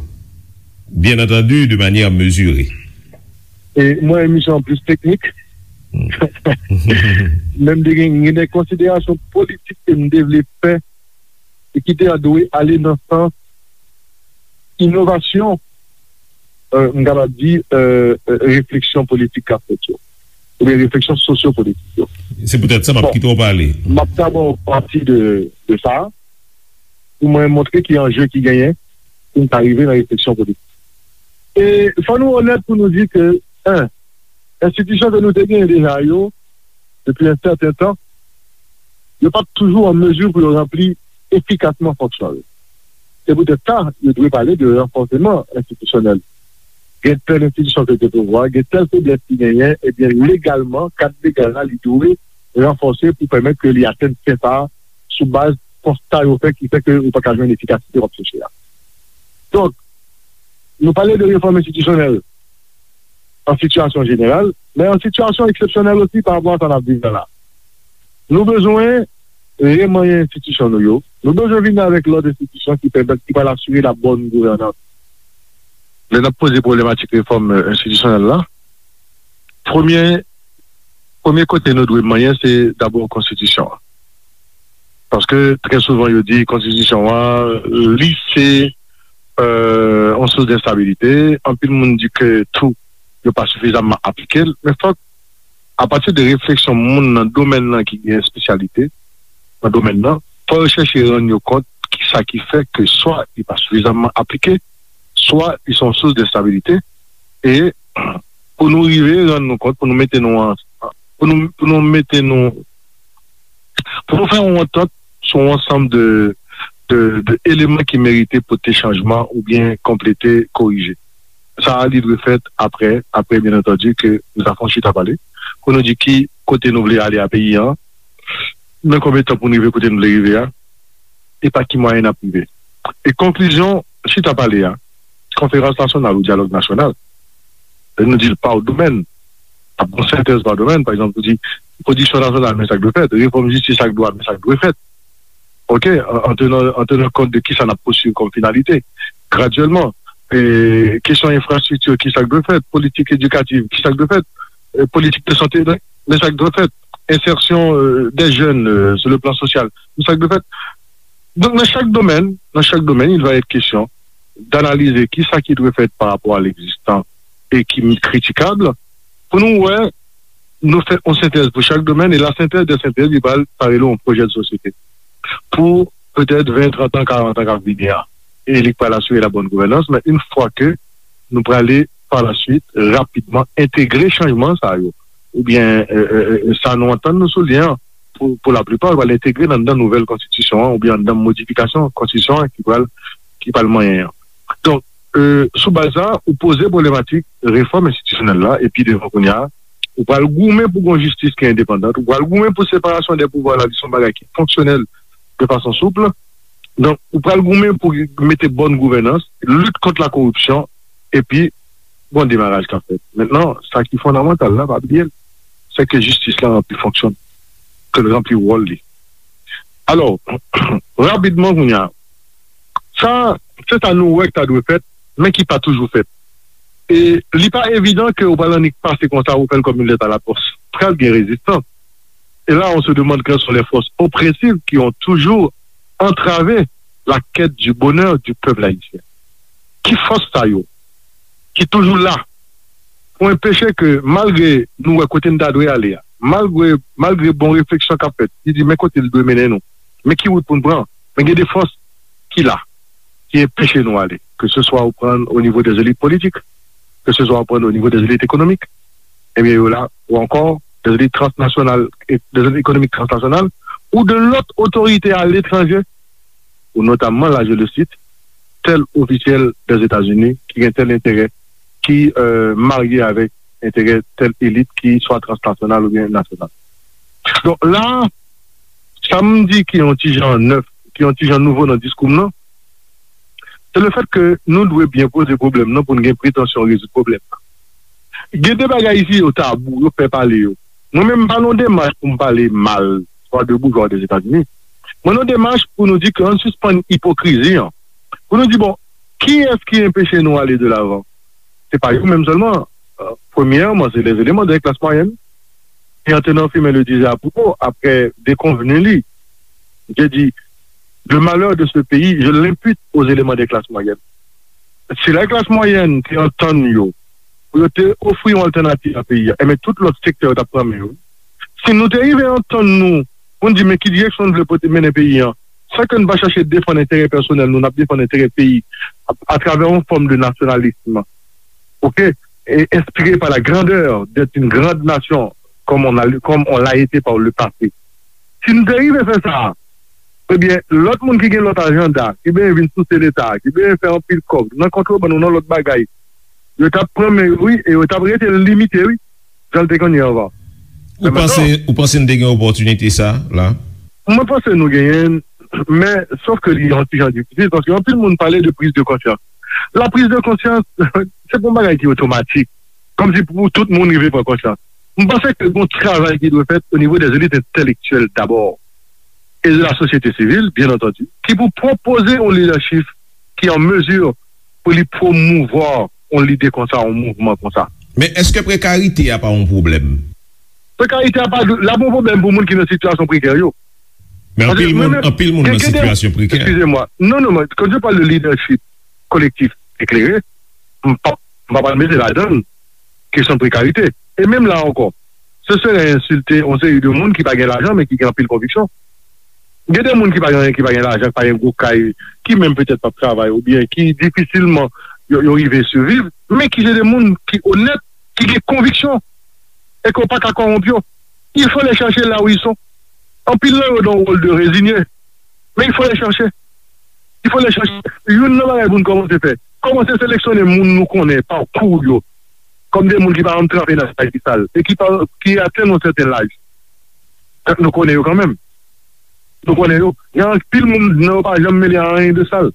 Byen antandi, de manyè mezire. E mwen, emisyon an plis teknik. Men m te gen, gen de konsiderasyon politik ke m te vle fè e ki te dwe ale nan sans inovasyon, e, m kapab di, e, e, refleksyon politik k ap fèt yo, oubyen refleksyon sosyopolitik yo. Se poutèt sa m ap kite w pale. M ap dabò pati de, de sa, pou mwen montre ki anje ki genyen pou n ta rive nan refleksyon politik. E fò nou onèt pou nou di ke, en, enstitisyon ke nou te genyen deja yo, depi yon sèten tan, yo pa t toujou an mezi pou yo ranpli efikasman fonksyon yo. Se poutèt sa, yo dwe pale de ranfòseman enstitisyonèl. Gen tèl enstitisyon ke te pouvwa, gen tèl feblès ki genyen, ebyen, legalman, kad legal la, li dwe ranfòse pou pèmèt ke li atenn fen sa a sou baz konsta yo fè ki fè ke ou pa ka jwenn efikasite w ap chèche a. Donk, nou pale de refòm enstitisyonèl an sitiyasyon jeneral, men an sitiyasyon eksepsyonèl osi pa rapò a sa n ap viv la la. Nou bezwen remanyen enstitisyon nou yo. Nou bezwen vin avèk lòt enstitisyon ki pèmèt, ki pral asire la bòn gouvènans. Lè n ap poze pwoblematik refòm, e, enstitisyonèl la, premye, premye kote nou dwe manyen, se dabò konstitisyon an. Paske trè souvan yo di konstitisyon an, li se yon sous de enstabilite. Anpil moun di ke tou, yo pa sifizamman aplike l. Men fòk, apati de refleksyon moun nan domèn nan ki gen espesyalite nan domèn nan, fò yo chèche rann yo kont kisa ki fè ke swa li pa sifizamman aplike, swa li se yon sous de enstabilite. E pou nou rive rann nou kont, pou nou mete nou an, pou nou, pou nou mete nou, pou nou fè yon antant sou yon ansanm de, de, de eleman ki merite pote chanjman oubyen konplete, korije. Sa a, li dwe fèt apre, apre, byen antandi, ke nou ta fè yon chita pale, pou nou di ki kote nou vle ale a peyi an, nan konbyen tan pou nou rive kote nou vle rive a, e pa ki mwayen n ap rive. E konklizyon chita pale a, konferans nasyonal ou dyalòg nasyonal, lè nou di l pa domèn, ap gon sentèz pa domèn, pa egzanp, ou di pwodiksyon nasyonal, men sa k dwe fèt, refòm jistis ak dwa, men sa k dwe fèt. Ok, an, an tenan, an tenan kont de kisa n ap pousuiv kòm finalite, gradyèlman, e, kesyon enfrastrikti, kisa k dwe fèt, politik edikativ, kisa k dwe fèt, e, politik de sante, men sa k dwe fèt, ensèsyon, e, dè jèn, e, sou le plan sosyal, men sa k dwe fèt. Donk, nan chak domèn, nan chak domèn, il va être question d'analyser kisa ki dwe fèt pa rapò a legzistan e ki kritikab, pou nou wè, nou fè yon sentèz pou chak domèn, e la synthèse des synthèses, li pral parele yon pwojè de sosyete pou petèt ven, trant an, karant an k ap vini an. E li pral asire la bonne gouvernance, men yon fwa ke nou prale pa la suite, rapidman, entegre chanjman sa yo, oubyen, e, e, e, sa nou antann nou sou li an, pou, pou laplipa, pral entegre nan, nan nouvèl konstitisyon an, oubyen nan modifikasyon konstitisyon an ki pral, ki pral manyen an. Donk, e, sou baz sa, ou poze pwoblematik refòm enstitisyonèl la, epi devan kounye a, ou pral goumen pou gon jistis ki endepandan, ou pral goumen pou separasyon dè pouvwa la, li se yon bagay ki fonksyonèl de fason soup. Donk, ou pral goumen pou mete bòn gouvènans, lit kont la koripsyon, epi gon demaraj k ap fèt. Mentnan, sa ki fondamantal la, pa bliye l, se ke jistis la ranpli fonksyon, ke l ranpli wòl li. Alò, rapidman kounye a, sa, se sa nou wè k ta dwe fèt, men ki pa toujou fèt. E li pa evidan ke ou pral annik pase konsa, ou fè l kòm yon lèt a la pòs. Pral gen rezistans. Et là, on se demande quelles sont les forces oppressives qui ont toujours entravé la quête du bonheur du peuple haïtien. Ki fòs sa yo ki toujou la pou enpeche ke, malgre nou wè kote n ta dwe ale a, malgre, malgre bon refleksyon k ap fèt, ki di men kote l dwe mennen nou, men ki wout pou n pran, men gen de fòs ki la, ki enpeche nou ale, ke se swa ou pran o nivo dè elit politik, ke se swa ou pran o nivo dè elit ekonomik, ebyen yo la, ou ankò dè elit transnasyonal, e, dè elit ekonomik transnasyonal, ou de lòt otorite aletranje, ou notamman, la je le cite, tèl ofisyèl dè Etazini ki gen tèl enterè, ki, e, marye avèk enterè tèl elit ki swa transnasyonal oubyen nasyonal. Donk la, sa m di ki yon ti jan nèf, ki yon ti jan nouvo nan diskou m nan, se le fèt ke nou dwe byen poze pwoblèm nan pou n gen pretansyon rezoud pwoblèm nan. Gen de bagay isi yo tabou, yo pè pale yo. Mwen menm, m pa nan yon demach pou m pale mal, swa de boujwa ou dè Etazini. Mwen nan yon demach pou nou di ke ann sispann ipokrizi an. Pou nou di, bon, kiyès ki enpeche nou ale de lavan? Se pa yo menm sèlman. E, premyèman, se lèzeleman de klas mwayèn. Et en tenant Firmin le disait à propos, après déconvenu li, je dis, le malheur de ce pays, je l'impute aux éléments des classes moyennes. Si la klas mwayèn te antann yo, pou yo te ofri yon altènativ a peyi a, enben tout lòt sektè yo t ap pran men yo. Si nou te rive antann nou, pou n di men ki direksyon n vle pote mennen peyi an, san ke n pa chache defann enterè pèsonèl nou, n ap defann enterè peyi a, atravè yon fòm de nasyonalism, ok, et inspiré par la grandeur d'être une grande nation, comme on a, comme on l'a été par le passé. Si n te rive fè sa, ebyen, lòt moun ki gen lòt ajanda, ki benyen vin souse Leta, ki benyen fè anpil kòb nan kontrebann ou nan lòt bagay, yo t ap pran men yo, wi, e yo t ap rete limite, wi, jan l te konn ye anvan. Ou panse, ou panse n te gen opòtinite sa la? Mwen panse nou genyen l, men sòf ke li yon ti jan difisil, paske anpil moun pale de priz de konsyans. La priz de konsyans, se pa yon bagay ki otomatik. Kòmsi pou tout moun rive pran konsyans. M panse ke gon travay ki dwe fèt o nivo dè elit entèlektyèl dabò, e de la sosyete sivil, byen antandi, ki pou pwopoze yon lidèchif ki an mezi pou li pwomouvwa yon lide konsa, yon mouvman konsa. Men èske prekarite a pa yon pwoblèm? Prekarite a pa, l ap yon pwoblèm pou moun ki nan sitiyasyon prekè yo. Men anpil moun, anpil moun nan sitiyasyon prekè. Excusez-moi. Non, non, quand je parle de leadership collectif éclairé, m pa, m pa pral mete ladan kesyon prekarite. E menm la ankò, se sere ensilte yon seri de moun ki pa gen lajan, men ki gen anpil konviksyon. Gen de moun ki pa gen, ki pa gen lajan, ki pa gen gwo kay, ki menm petèt p ap travay, oubyen ki difisilman yo, yo rive siviv, men ki se de moun ki onèt, ki gen konviksyon, e ke w pa ka kòwonp yo. Il faut les chercher là où ils sont. Anpil nan yo dans un rôle de résigné. Men il faut les chercher. Il faut les chercher. Youn nan bagay pou n kòmanse fè, kòmanse seleksyone moun nou konnen, pakou yo, kòm de moun ki pa janm tranpe nan bagay ki sal, e ki pa, ki atenn yon sèten laj. Tank nou konnen yo kanmenm. Nou konnen yo. Gen anpil moun nan yo pa janm mele a anyen de sal.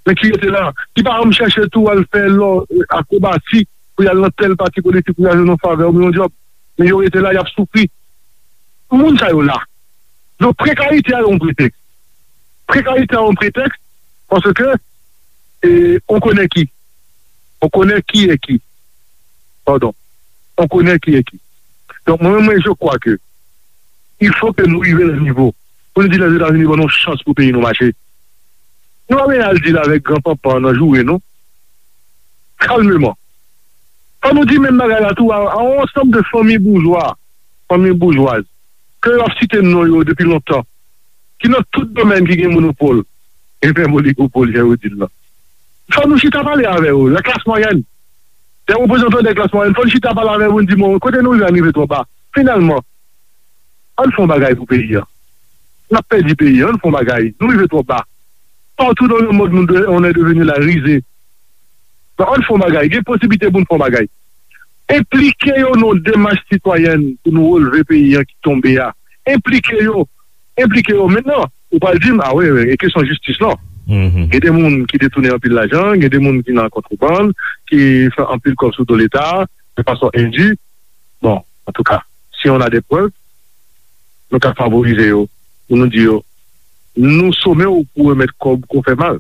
Men ki rete la, ki pa janm chèche tou al fè lò, akrobasi, pou y al nan tèl pati politik, pou y al jwenn yon favè oubyen yon djòb. Men yo rete la, y ap soufri. Moun sa yo la. Donk, prekarite a yon pretèks. Prekarite a yon pretèks, paske, e, on connaît qui. On connaît qui est qui. Pardon. On connaît qui est qui. Donk, mwen, mwen, je crois que il faut que nou rive nan nivo pou nou di Lèzetazini ban nou chans pou peyi nou mache. Nou pa bezwen al di l avèk gran panpan nan joure nou. Kalmeman. Fò nou di menm bagay la tou a, a yon ansanm de fanmi boujwa, fanmi boujwaz, ke yo ap site non yo depi lontan, ki nan tout domèn ki gen monopòl, e menm oligopòl, jan yo di l lan. Fò nou chita pale avè yo, la klas mwayèn. Dè reprezantan dè klas mwayèn, fò nou chita pale avè yo pou n di, bon, kote nou rive a rive twò ba. Finalman, ann fè yon bagay pou peyi a. N ap pèdi peyi a, ann fè yon bagay. Nou rive twò ba. Partout dans le monde, nous de- on est devenu la risée. Donk, ann fè yon bagay. Gen posiblite pou n fè yon bagay. Enplike yo nan yon demach sitwayèn pou nou releve peyi a ki tonbe a. Enplike yo. Enplike yo. Mentnan, ou pral di m, a wi, wi, e kesyon jistis lan. Gen de moun ki detounen anpil lajan, gen de moun ki nan kontrebann, ki fè anpil kòb sou do Leta, de fason endu. Bon, antouka, si on a des preuves, nou ka favorize yo, pou nou di yo, nou some w pou remèt kòb ke w fè mal,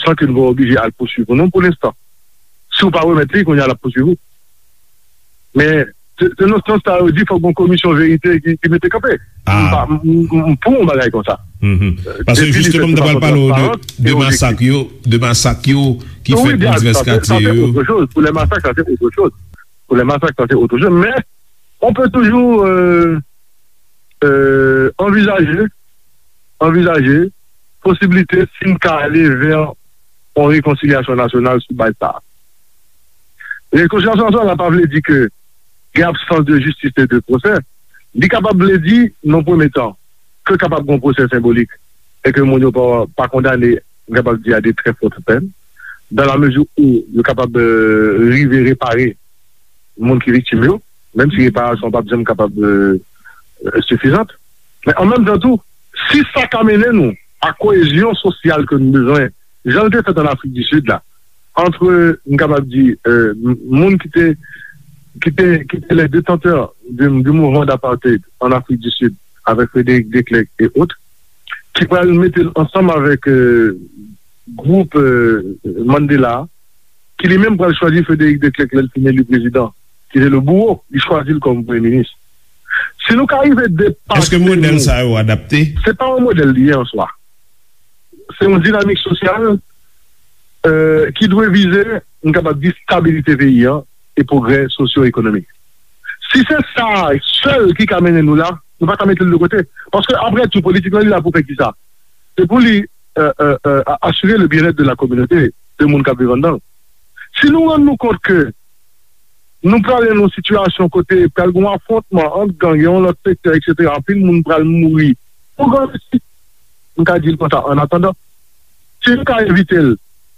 san ke nou pa oblije al pouswiv ou non pou lenstan. Si w pa remèt li, kounye a l ap pouswiv ou. Men, se se nan sans sa yo di fòk gon komisyon verite ki, ki mete kanpe. M pa, m, m, m pou yon bagay konsa. Paske jisteman, m te pral pale w de, de masak yo, de masak yo ki fèt nan divès katye yo. Pour les massacres, ça, c'est autre chose. Pour les massacres, ça, c'est autre chose. Mais on peut toujours euh, euh, envisager, envisager posibilite si n ka ale vè yon rekonsilyasyon nasyonal sou baz sa a. Rekonsilyasyon nasyonal la pa vle di ke gen absans de jistis e de pwosè. Li kapab vle di, nan premye tan, ke kapab gen yon pwosè senbolik e ke moun yo pa, pa kondane, m kapab di, a de très fortes peines, dans la mesure où yo kapab euh, rive repare moun ki viktim yo, menm si reparasyon p ap janm kapab euh, euh, sifizant. Men an menm tan tou, si sa ka mennen nou a koyezyon sosyal ke nou bezwen, jan l te fèt an Afrik di Sid la, antre, m kapab di, euh, m- moun ki te, ki te, ki te les détenteurs du, du mouvement d'apartheid en Afrique du Sud, avec Frédéric de Klerk et autres, ki pral mete l ansanm avèk euh, gwoup euh, Mandela, ki li menm pral chwazi Frédéric de Klerk lè l fin eli prezidan, ki te le bourreau, li chwazi l kòm premye minis. Si nou ka rive depase... Èske modèl sa yo adapte? Se pa yon modèl li ye an swa. Se yon dinamik sosyal euh, ki dwe vize, m kapab di, stabilite peyi an e pwogrè sosyo-ekonomik. Si se sa sèl ki ka mennen nou la, nou pa ka mete l de kote. Paske, apre tou, politik lan, li la pou fè kisa? Se pou li euh, euh, euh, a- asire le bien-être de la communauté, de moun k ap viv anndan l. Si nou rann nou kont ke nou prale nan yon sitiyasyon kote pral gen yon afwontman ant gang e yon lòt sektè, etsetera, anpil moun pral mouri pou gran mesi, m ka di l konsa, an atandan, si nou ka evite l,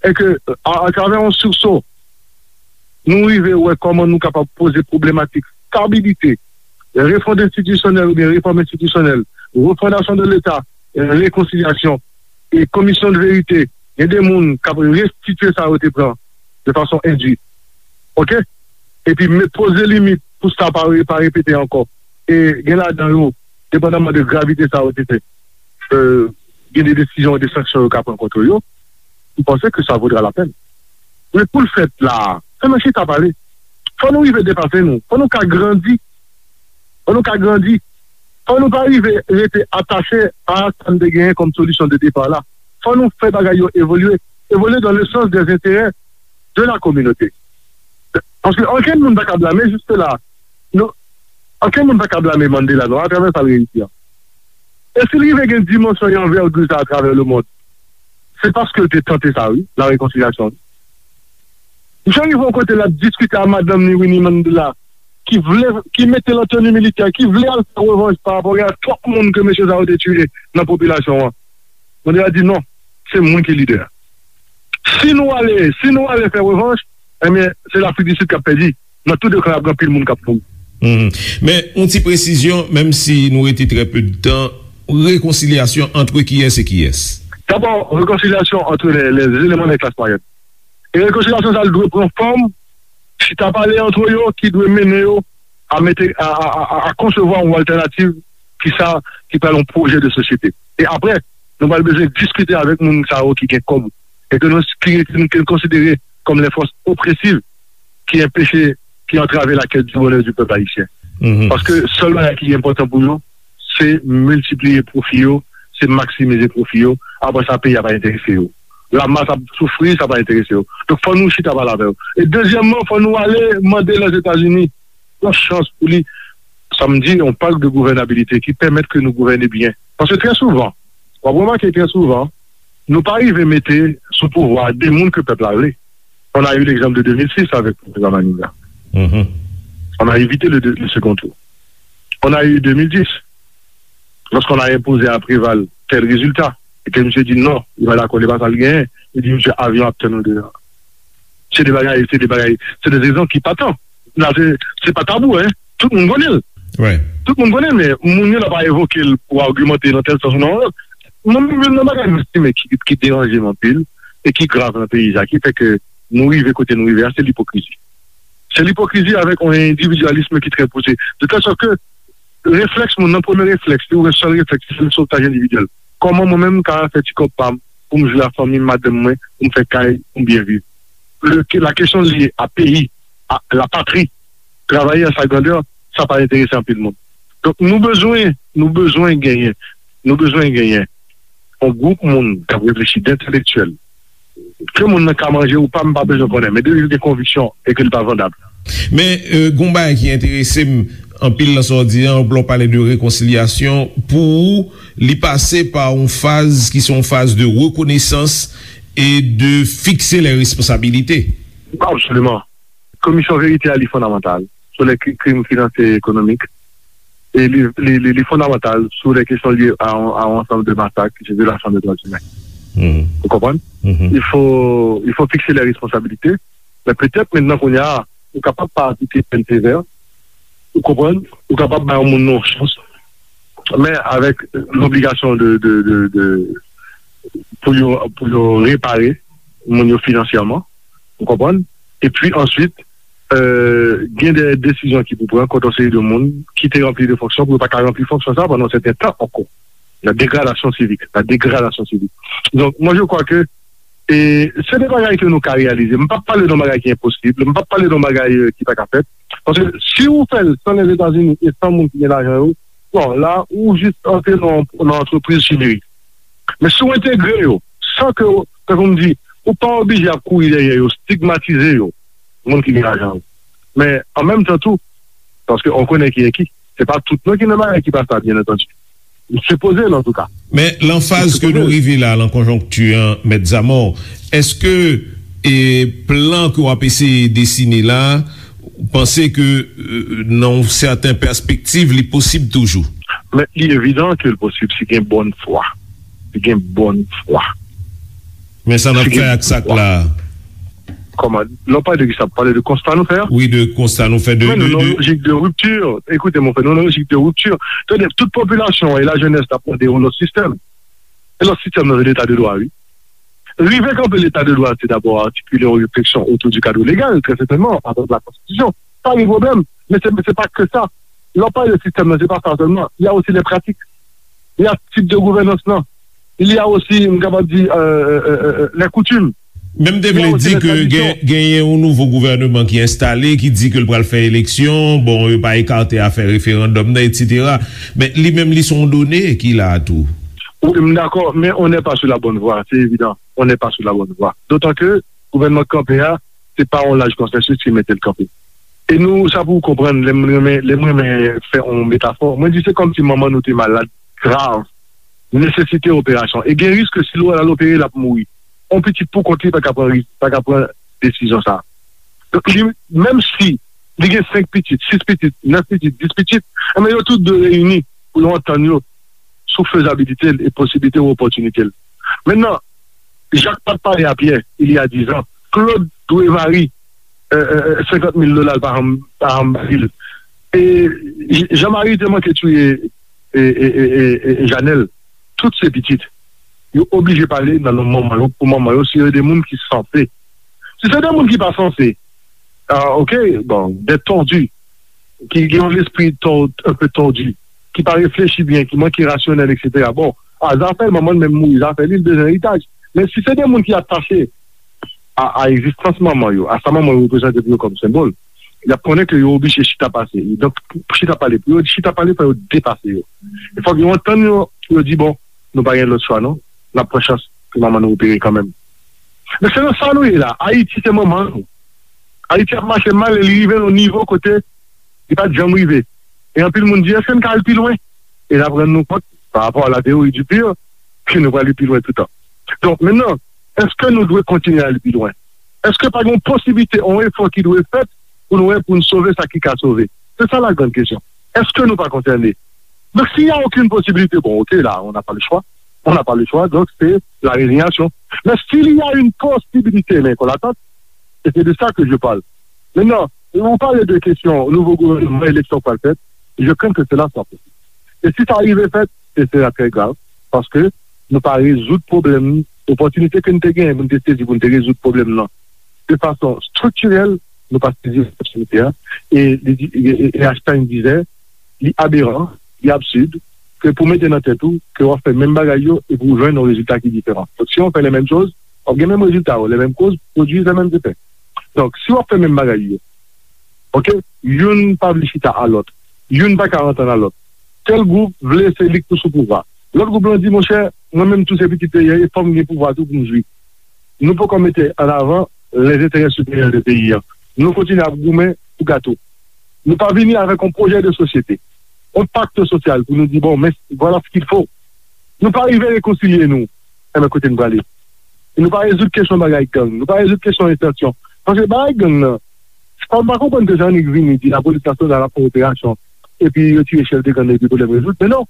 e ke, a- atravè yon sursaut, nou rive wè kòman nou kapab poze pwoblematik stabilite, refond enstitisyonèl oubyen refòm enstitisyonèl, refondasyon de Leta, rekonsilyasyon, e komisyon de verite, gen de moun k ap restitye sa yo te pran de fason endu. Oke? Epi met poze limit pou sa pa re- pa repete ankò. E gen ladan yo, depandaman de gravite sa yo te fè, euh, gen de desizyon, de sanksyon yo ka pran kont yo. M panse ke sa vodra la pèn. Men pou l fèt la, fò nou chita pale. Fò nou rive depase nou. Fò nou ka grandi. Fò nou ka grandi. Fò nou pa rive rete atache a sa n te genyen kòm solisyon de depa la. Fò nou fè bagay yo evolye, evolye dans le sens des intérêts de la communauté. Paske ankenn moun pa ka blame jis la. Nou, ankenn moun pa ka blame Mandela non, atravè sa l reyisi an. E si l rive gen dimansyon e anvègi sa atravè lemond, se paske l te tante sa wi, la rekonsilyasyon. Misye rive yon kote l ap diskite a madanm ni Winnie Mandela, ki vle, ki mete l an teni militè, ki vle al fè revanj pa rapò a twòp moun ke mesye sa yo te tiye nan popilasyon an. Mandela di non, se mwen ki lidè. Si nou ale, si nou ale fè revanj, ebyen, se Lafrik di Sid k ap pèdi. Nan tou de kan, ap gen anpil moun k ap mouri. Men yon ti presizyon, menm si nou rete trè pe de tan, rekonsilyasyon antre kiyès e kiyès? Dabò, rekonsilyasyon antre lè, lè eleman de klas mwayèn. E rekonsilyasyon sa dwe pran fòm chita pale antre yo ki dwe mennen yo a mete a, a, a, a konsevwa yon altènativ ki sa ki pral yon pwojè de sosyete. E apre, nou pral bezwen diskite avèk moun sa yo ki gen kòb e ke nou ki, ke nou konsidere kòm les forces oppressives ki enpeche, ki antrave la quête du bonheur du peuple haïtien. Paske sèl bagay ki enpòtan pou yo, se miltipliye pwofi yo, se maksimize pwofi yo. Apre sa, peyi a pa enterese yo. Lamas ap soufri, sa pa enterese yo. Donk, fò nou chita pale avè yo. E dezyèmman, fò nou ale mande Lèzetazini yon chans pou li, sa m di, yon pak de gouvènabilite ki pèmèt ke nou gouvène byen. Paske trè souvan, w ap remake trè souvan, nou pa rive mete sou pouvwa de moun ke pèp la vle. On a eu l'exemple de deux mille six avec le président Manigat. On a évité le, le second tour. On a eu deux mille dix, lorsqu'on a imposé à Préval tel résultat, et que monsieur dit non, il va d'accord, il va pas le gagner, il dit monsieur, avion ap tann nou deja. Se de bagay, se de bagay, se de rezon ki pa tan. La, se, se pa tabou, hein. Tout moun konnen l. Tout moun konnen l, men moun yo la pa evoke l pou agimante nan tèl sans ou nan yon lòt. Mwen menm, youn nan bagay mwen estime ki, ki deranje m anpil e ki grav nan peyi sa, ki fè ke nou rive kote nou rive a, se lipokrizi. Se lipokrizi avèk yon endividyalism ki trè pouse. De tèl sòt ke reflèks moun nan, premye reflèks, li wè sèl reflèks, se sotaj endividyèl. Kòman mwen menm m ka fè ti kòb pa m pou m jwe a fanmi m, madanm mwen, pou m fè kay, pou m byen viv? Le, la kesyon lye a peyi, a la patri, travay an sa grandè, sa pa enterese anpil moun. Donk, nou bezwen, nou bezwen genyen, nou bezwen genyen yon gwoup moun k ap reflechi, d entelektyèl. Ke moun nan ka manje ou pa, m pa bezwen konnen, men depi l gen konviksyon e ke li pa vandab. Men, euh, gon bagay ki enterese m anpil nan sa w di an, lè w pale de rekonsilyasyon, pou ou, li pase pa yon faz ki se yon faz de rekonesans e de fikse lè responsabilite. Absoliman. Komisyon verite a, li fondamantal sou lè kri-, krim finansyè e ekonomik. E li, li, li, li fondamantal sou lè kesyon lye a, a yon ansanm de masak, ki se vyolasyon de dwa imen. Ou konprann? Il faut, il faut fixer les responsabilités. Men petèt, mentnan, kounye a, ou kapab pa aplike pèn sevè. Ou konprann? Ou kapab bay yon moun nan yon chans. Men avèk lobligasyon de, de, de, de, pou yo, pou yo repare moun yo finansyèman. Ou konprann? Epi answit, euh, gen de desizyon ki pou pran kont yon seri de moun ki te ranpli de fonksyon, pou yo pa ka ranpli fonksyon sa pandan yon sèten tan ankò. La dégradation civique, la dégradation civique. Donc, moi, je crois que, e, se de bagay ke nou ka reyalize. M p ap pale de yon bagay ki enposib, m p ap pale de yon bagay, euh, ki pa ka fèt. Paske si ou fè l san Lèzetazini e san moun ki gen lajan yo, bon, la, ou jis antre nan, nan antrepriz chimerik. Men si w entegre yo, san ke, tankou m di, ou pa oblije ap kouri dèyè yo, stigmatize yo, moun ki gen lajan yo. Men, an menm tan tou, paske on konnen ki e ki, se pa tout non ki nan bagay ki pa sa, byen antandi. Li sipoze l, antouka. Men, lan faz ke nou rive la, lan konjonkti an, Mèt Zamò, èske, e, plan ke w ap eseye desine la, ou panse ke, e, nan yon sèten pèspektiv, li posib toujou? Men, li evidan ke l posib si gen bòn fwa. Si gen bòn fwa. Men sa n ap fè ak sa k la a? Kòman? Lè w pale de kisa? Pale de konsta nou fè a? Wi, de konsta nou fè. De, men nou nan lojik de ripti. Ekoute, mon frè, nou nan lojik de ripti. Tande, tout popilasyon an e lajenès la ap mande yon lòt sistèm. E lòt sistèm nan, se leta de dwa, wi. Rive kanpe leta de dwa, se dabò atikile yon refleksyon otou di kad legal, trè sètènman, atravè la konstitisyon. Sa gen pwoblèm, men se, se pa ke sa. Lè w pale de sistèm nan, se pa sa sèlman. Il y a aussi les pratiques. Il y a tip de gouvènans lan. Il y a aussi, m kapab di, euh, euh, euh, les coutumes. Men m te vle di ke gen, genyen yon nouvo gouvènman ki enstale, ki di ke l pral fè eleksyon, bon, yo pa ekate afè referandòm nan, etsetera. Men li menm, li se yon done ki la a tou. Wi, m dakò, men on n'est pas sur la bonne voie, c'est évident. On n'est pas sur la bonne voie. D'autant que gouvènman k kanpe a, se pa yon laj konsansis ki mete l kanpe. E nou, sa pou w konprann, lè m renmen, lè m renmen fè yon metafò, mwen di se kòmsi manman nou te malad grav, nesesite operasyon. E gen risk ke si l al opere, l ap mouri. Yon pitit pou kont li pa ka pran ris-, pa ka pran desizyon sa a. Donk, li, menm si li gen senk pitit, sis pitit, nèf pitit, dis pitit, enben yo tout dwe reyini pou yo antann yo sou fezabilite l e posiblite ou opòtinite l. Mentnan, Jak pa t pale a Pyè, il y a dix ans, Claude dwe Marie, euh, euh, senkant mil dola l pa janm, pa janm ba li l. E J-, Jean Marie te manke touye e, e, e, e, e Janèl. Tout se pitit. Yo oblije pale nan non manman yo, pou manman yo, si yo de moun ki sanse. Si se de moun ki pa sanse, ah, ok, bon, des tordus, ki gen yon lespri tò-, un peu tordu, ki pa reflechi byen, ki manke rasyonèl, etsetera. Bon, a, zafè l, manman l menm mouri, zafè li, l bezwen eritaj. Men si se de moun ki atache a, a egzistans manman yo, a sa manman yo reprezante pou yo kòm senbòl, y ap konnen ke yo oblije chita pase. Donk, pou chita pale, pou yo chita pale, fò yo depase yo. E fòk yo antann yo, pou yo di, bon, nou pa gen lòt chwa, non. N ap pran chans pou manman nou opere kanmenm. Men se nan sa nou ye la. Ayiti se manman nou. Ayiti ap mache mal e li rive nan yon nivo kote li pa t janm rive. E anpil moun di, èske n ka al pi lwen? E n ap rann nou kont, pa rapò a la teyori di pir, ke nou pral pi lwen toutan. Donk, mentnan, èske nou dwe kontinye al pi lwen? Èske pa gen yon posiblite, yon efò ki dwe fèt pou nou wè, pou n sove sa ki ka sove? Se sa la grande question. Èske nou pa konsène? Donk, s'il y a aucune possibilité, bon, ok, là, on n'a pas le choix. On n'a pas le choix, donc c'est la résignation. Mais s'il y a une possibilité, men kon latant, e se de sa ke je parle. Mentnan, ou pale de kesyon nouvo gouvènman, eleksyon k pral fèt, je crains que cela soit possible. E si sa rive fèt, se sera trè grav, paske nou pa rezoud pwoblèm, opòtinite ke n te genyen pou n te sezi pou n te rezoud pwoblèm nan de fason striktirèl, nou pa sezi opòtinite a, e, e, e, e Einstein disait, li aberan, li absid, ke pou mete nan tèt ou ke w ap fè menm bagay yo epi w jwenn yon rezilta ki diferan. Donk, si w fè les mêmes choses, w ap gen menm rezilta yo, les mêmes causes produisent les mêmes effets. Donk, si w ap fè menm bagay yo, ok, youn pa vle chita a lòt, youn pa ka antann a lòt. Tèl gwoup vle se li k pou sou pouvwa. Lòt gwoup lan di, monchè, mwen menm tou se pitit peyi a, e fò m gen pouvwa tou pou m jwi. Nou poko mete an avan les intérêts supérieurs de peyi an. Nou kontinye ap goumen pou gato. Nou pa vini avèk yon pwojè de sosyete, yon pakt sosyal pou nou di, bon, men, voilà ce qu'il faut. Nou pa rive rekonsilye nou. Enben, kote n prale? E nou pa rezoud kesyon bagay gang. Nou pa rezoud kesyon entansyon. Paske bagay gang nan, se pa, m pa konprann ke Jean-Nic vini di lapolis nasyonal ap fè operasyon, epi yo tire chèf de gang nan, epi pwoblèm rezoud. Men non.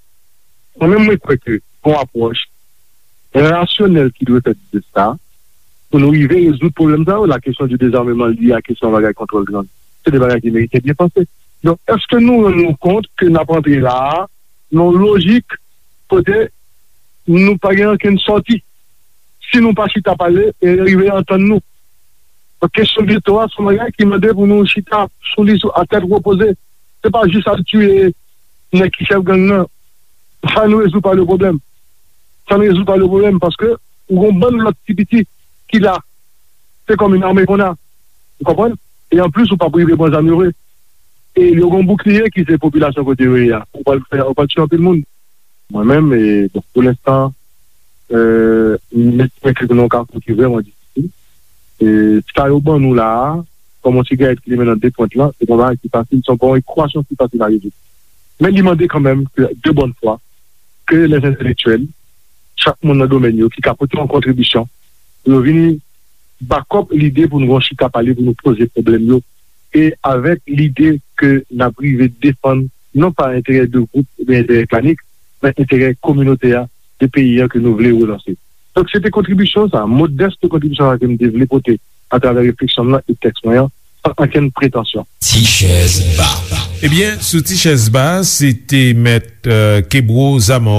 Mwen menm, mwen kwè ke gon apwòch rasyonèl ki dwe fèt de sa, pou nou rive rezoud pwoblèm sa yo, la question du désarmement lié à kesyon bagay kontwòl gang. Se de bagay ki merite byen panse. Donk, èske nou rann nou kont ke n ap antre la a, nan yon lojik kote nou pa gen ankenn sòti? Si nou pa chita pale e rive antann nou. Donk, kesyon geto a, se yon bagay ki mande pou nou chita sou li, sou, a tèt repoze. Se pa jis al tiye nèg ki chèf gang nan. Sa n rezoud pa le pwoblèm. Sa n rezoud pa le pwoblèm, paske ou gon bann lòt ti piti ki la. Se kòm yon ame konn a. Ou konprann? E anplis, ou p ap rive pran zam yo vre. E yo gon boukliye ki se popilasyon kote yo ye a. Ou pral fè, ou pral tiye anpil moun. Mwen menm, e, bon, pou lenstan, e, m estime ke nou nan yon kafou ki vrèman difisil. E, sa yo ban nou la a, kòm yon sigarèt ki limen nan de pwent lan, se pa yon bagay ki fasil, se pa yon ekwasyon ki fasil a rezoud. Men li mande kanmenm ke, de bonne foi, ke les intellectuels, chak moun nan domèn yo, ki ka pote yon kontribisyon, pou yo vini back up lide pou nou gon chita pale, pou nou poze pwoblèm yo, e avèk lide ke n ap rive defann, non pa enterè de gwoup oubyen enterè klanik, men enterè kominote a, de peyi a ke nou vle relanse. Donk, se te kontribisyon sa, modès kontribisyon sa ke m te vle pote atravè refleksyon m nan e tèks mwen an, san ankenn pretansyon. Ti chèz ba. Ebyen, sou Ti chèz ba, se te mèt, euh, Kebro Zaman.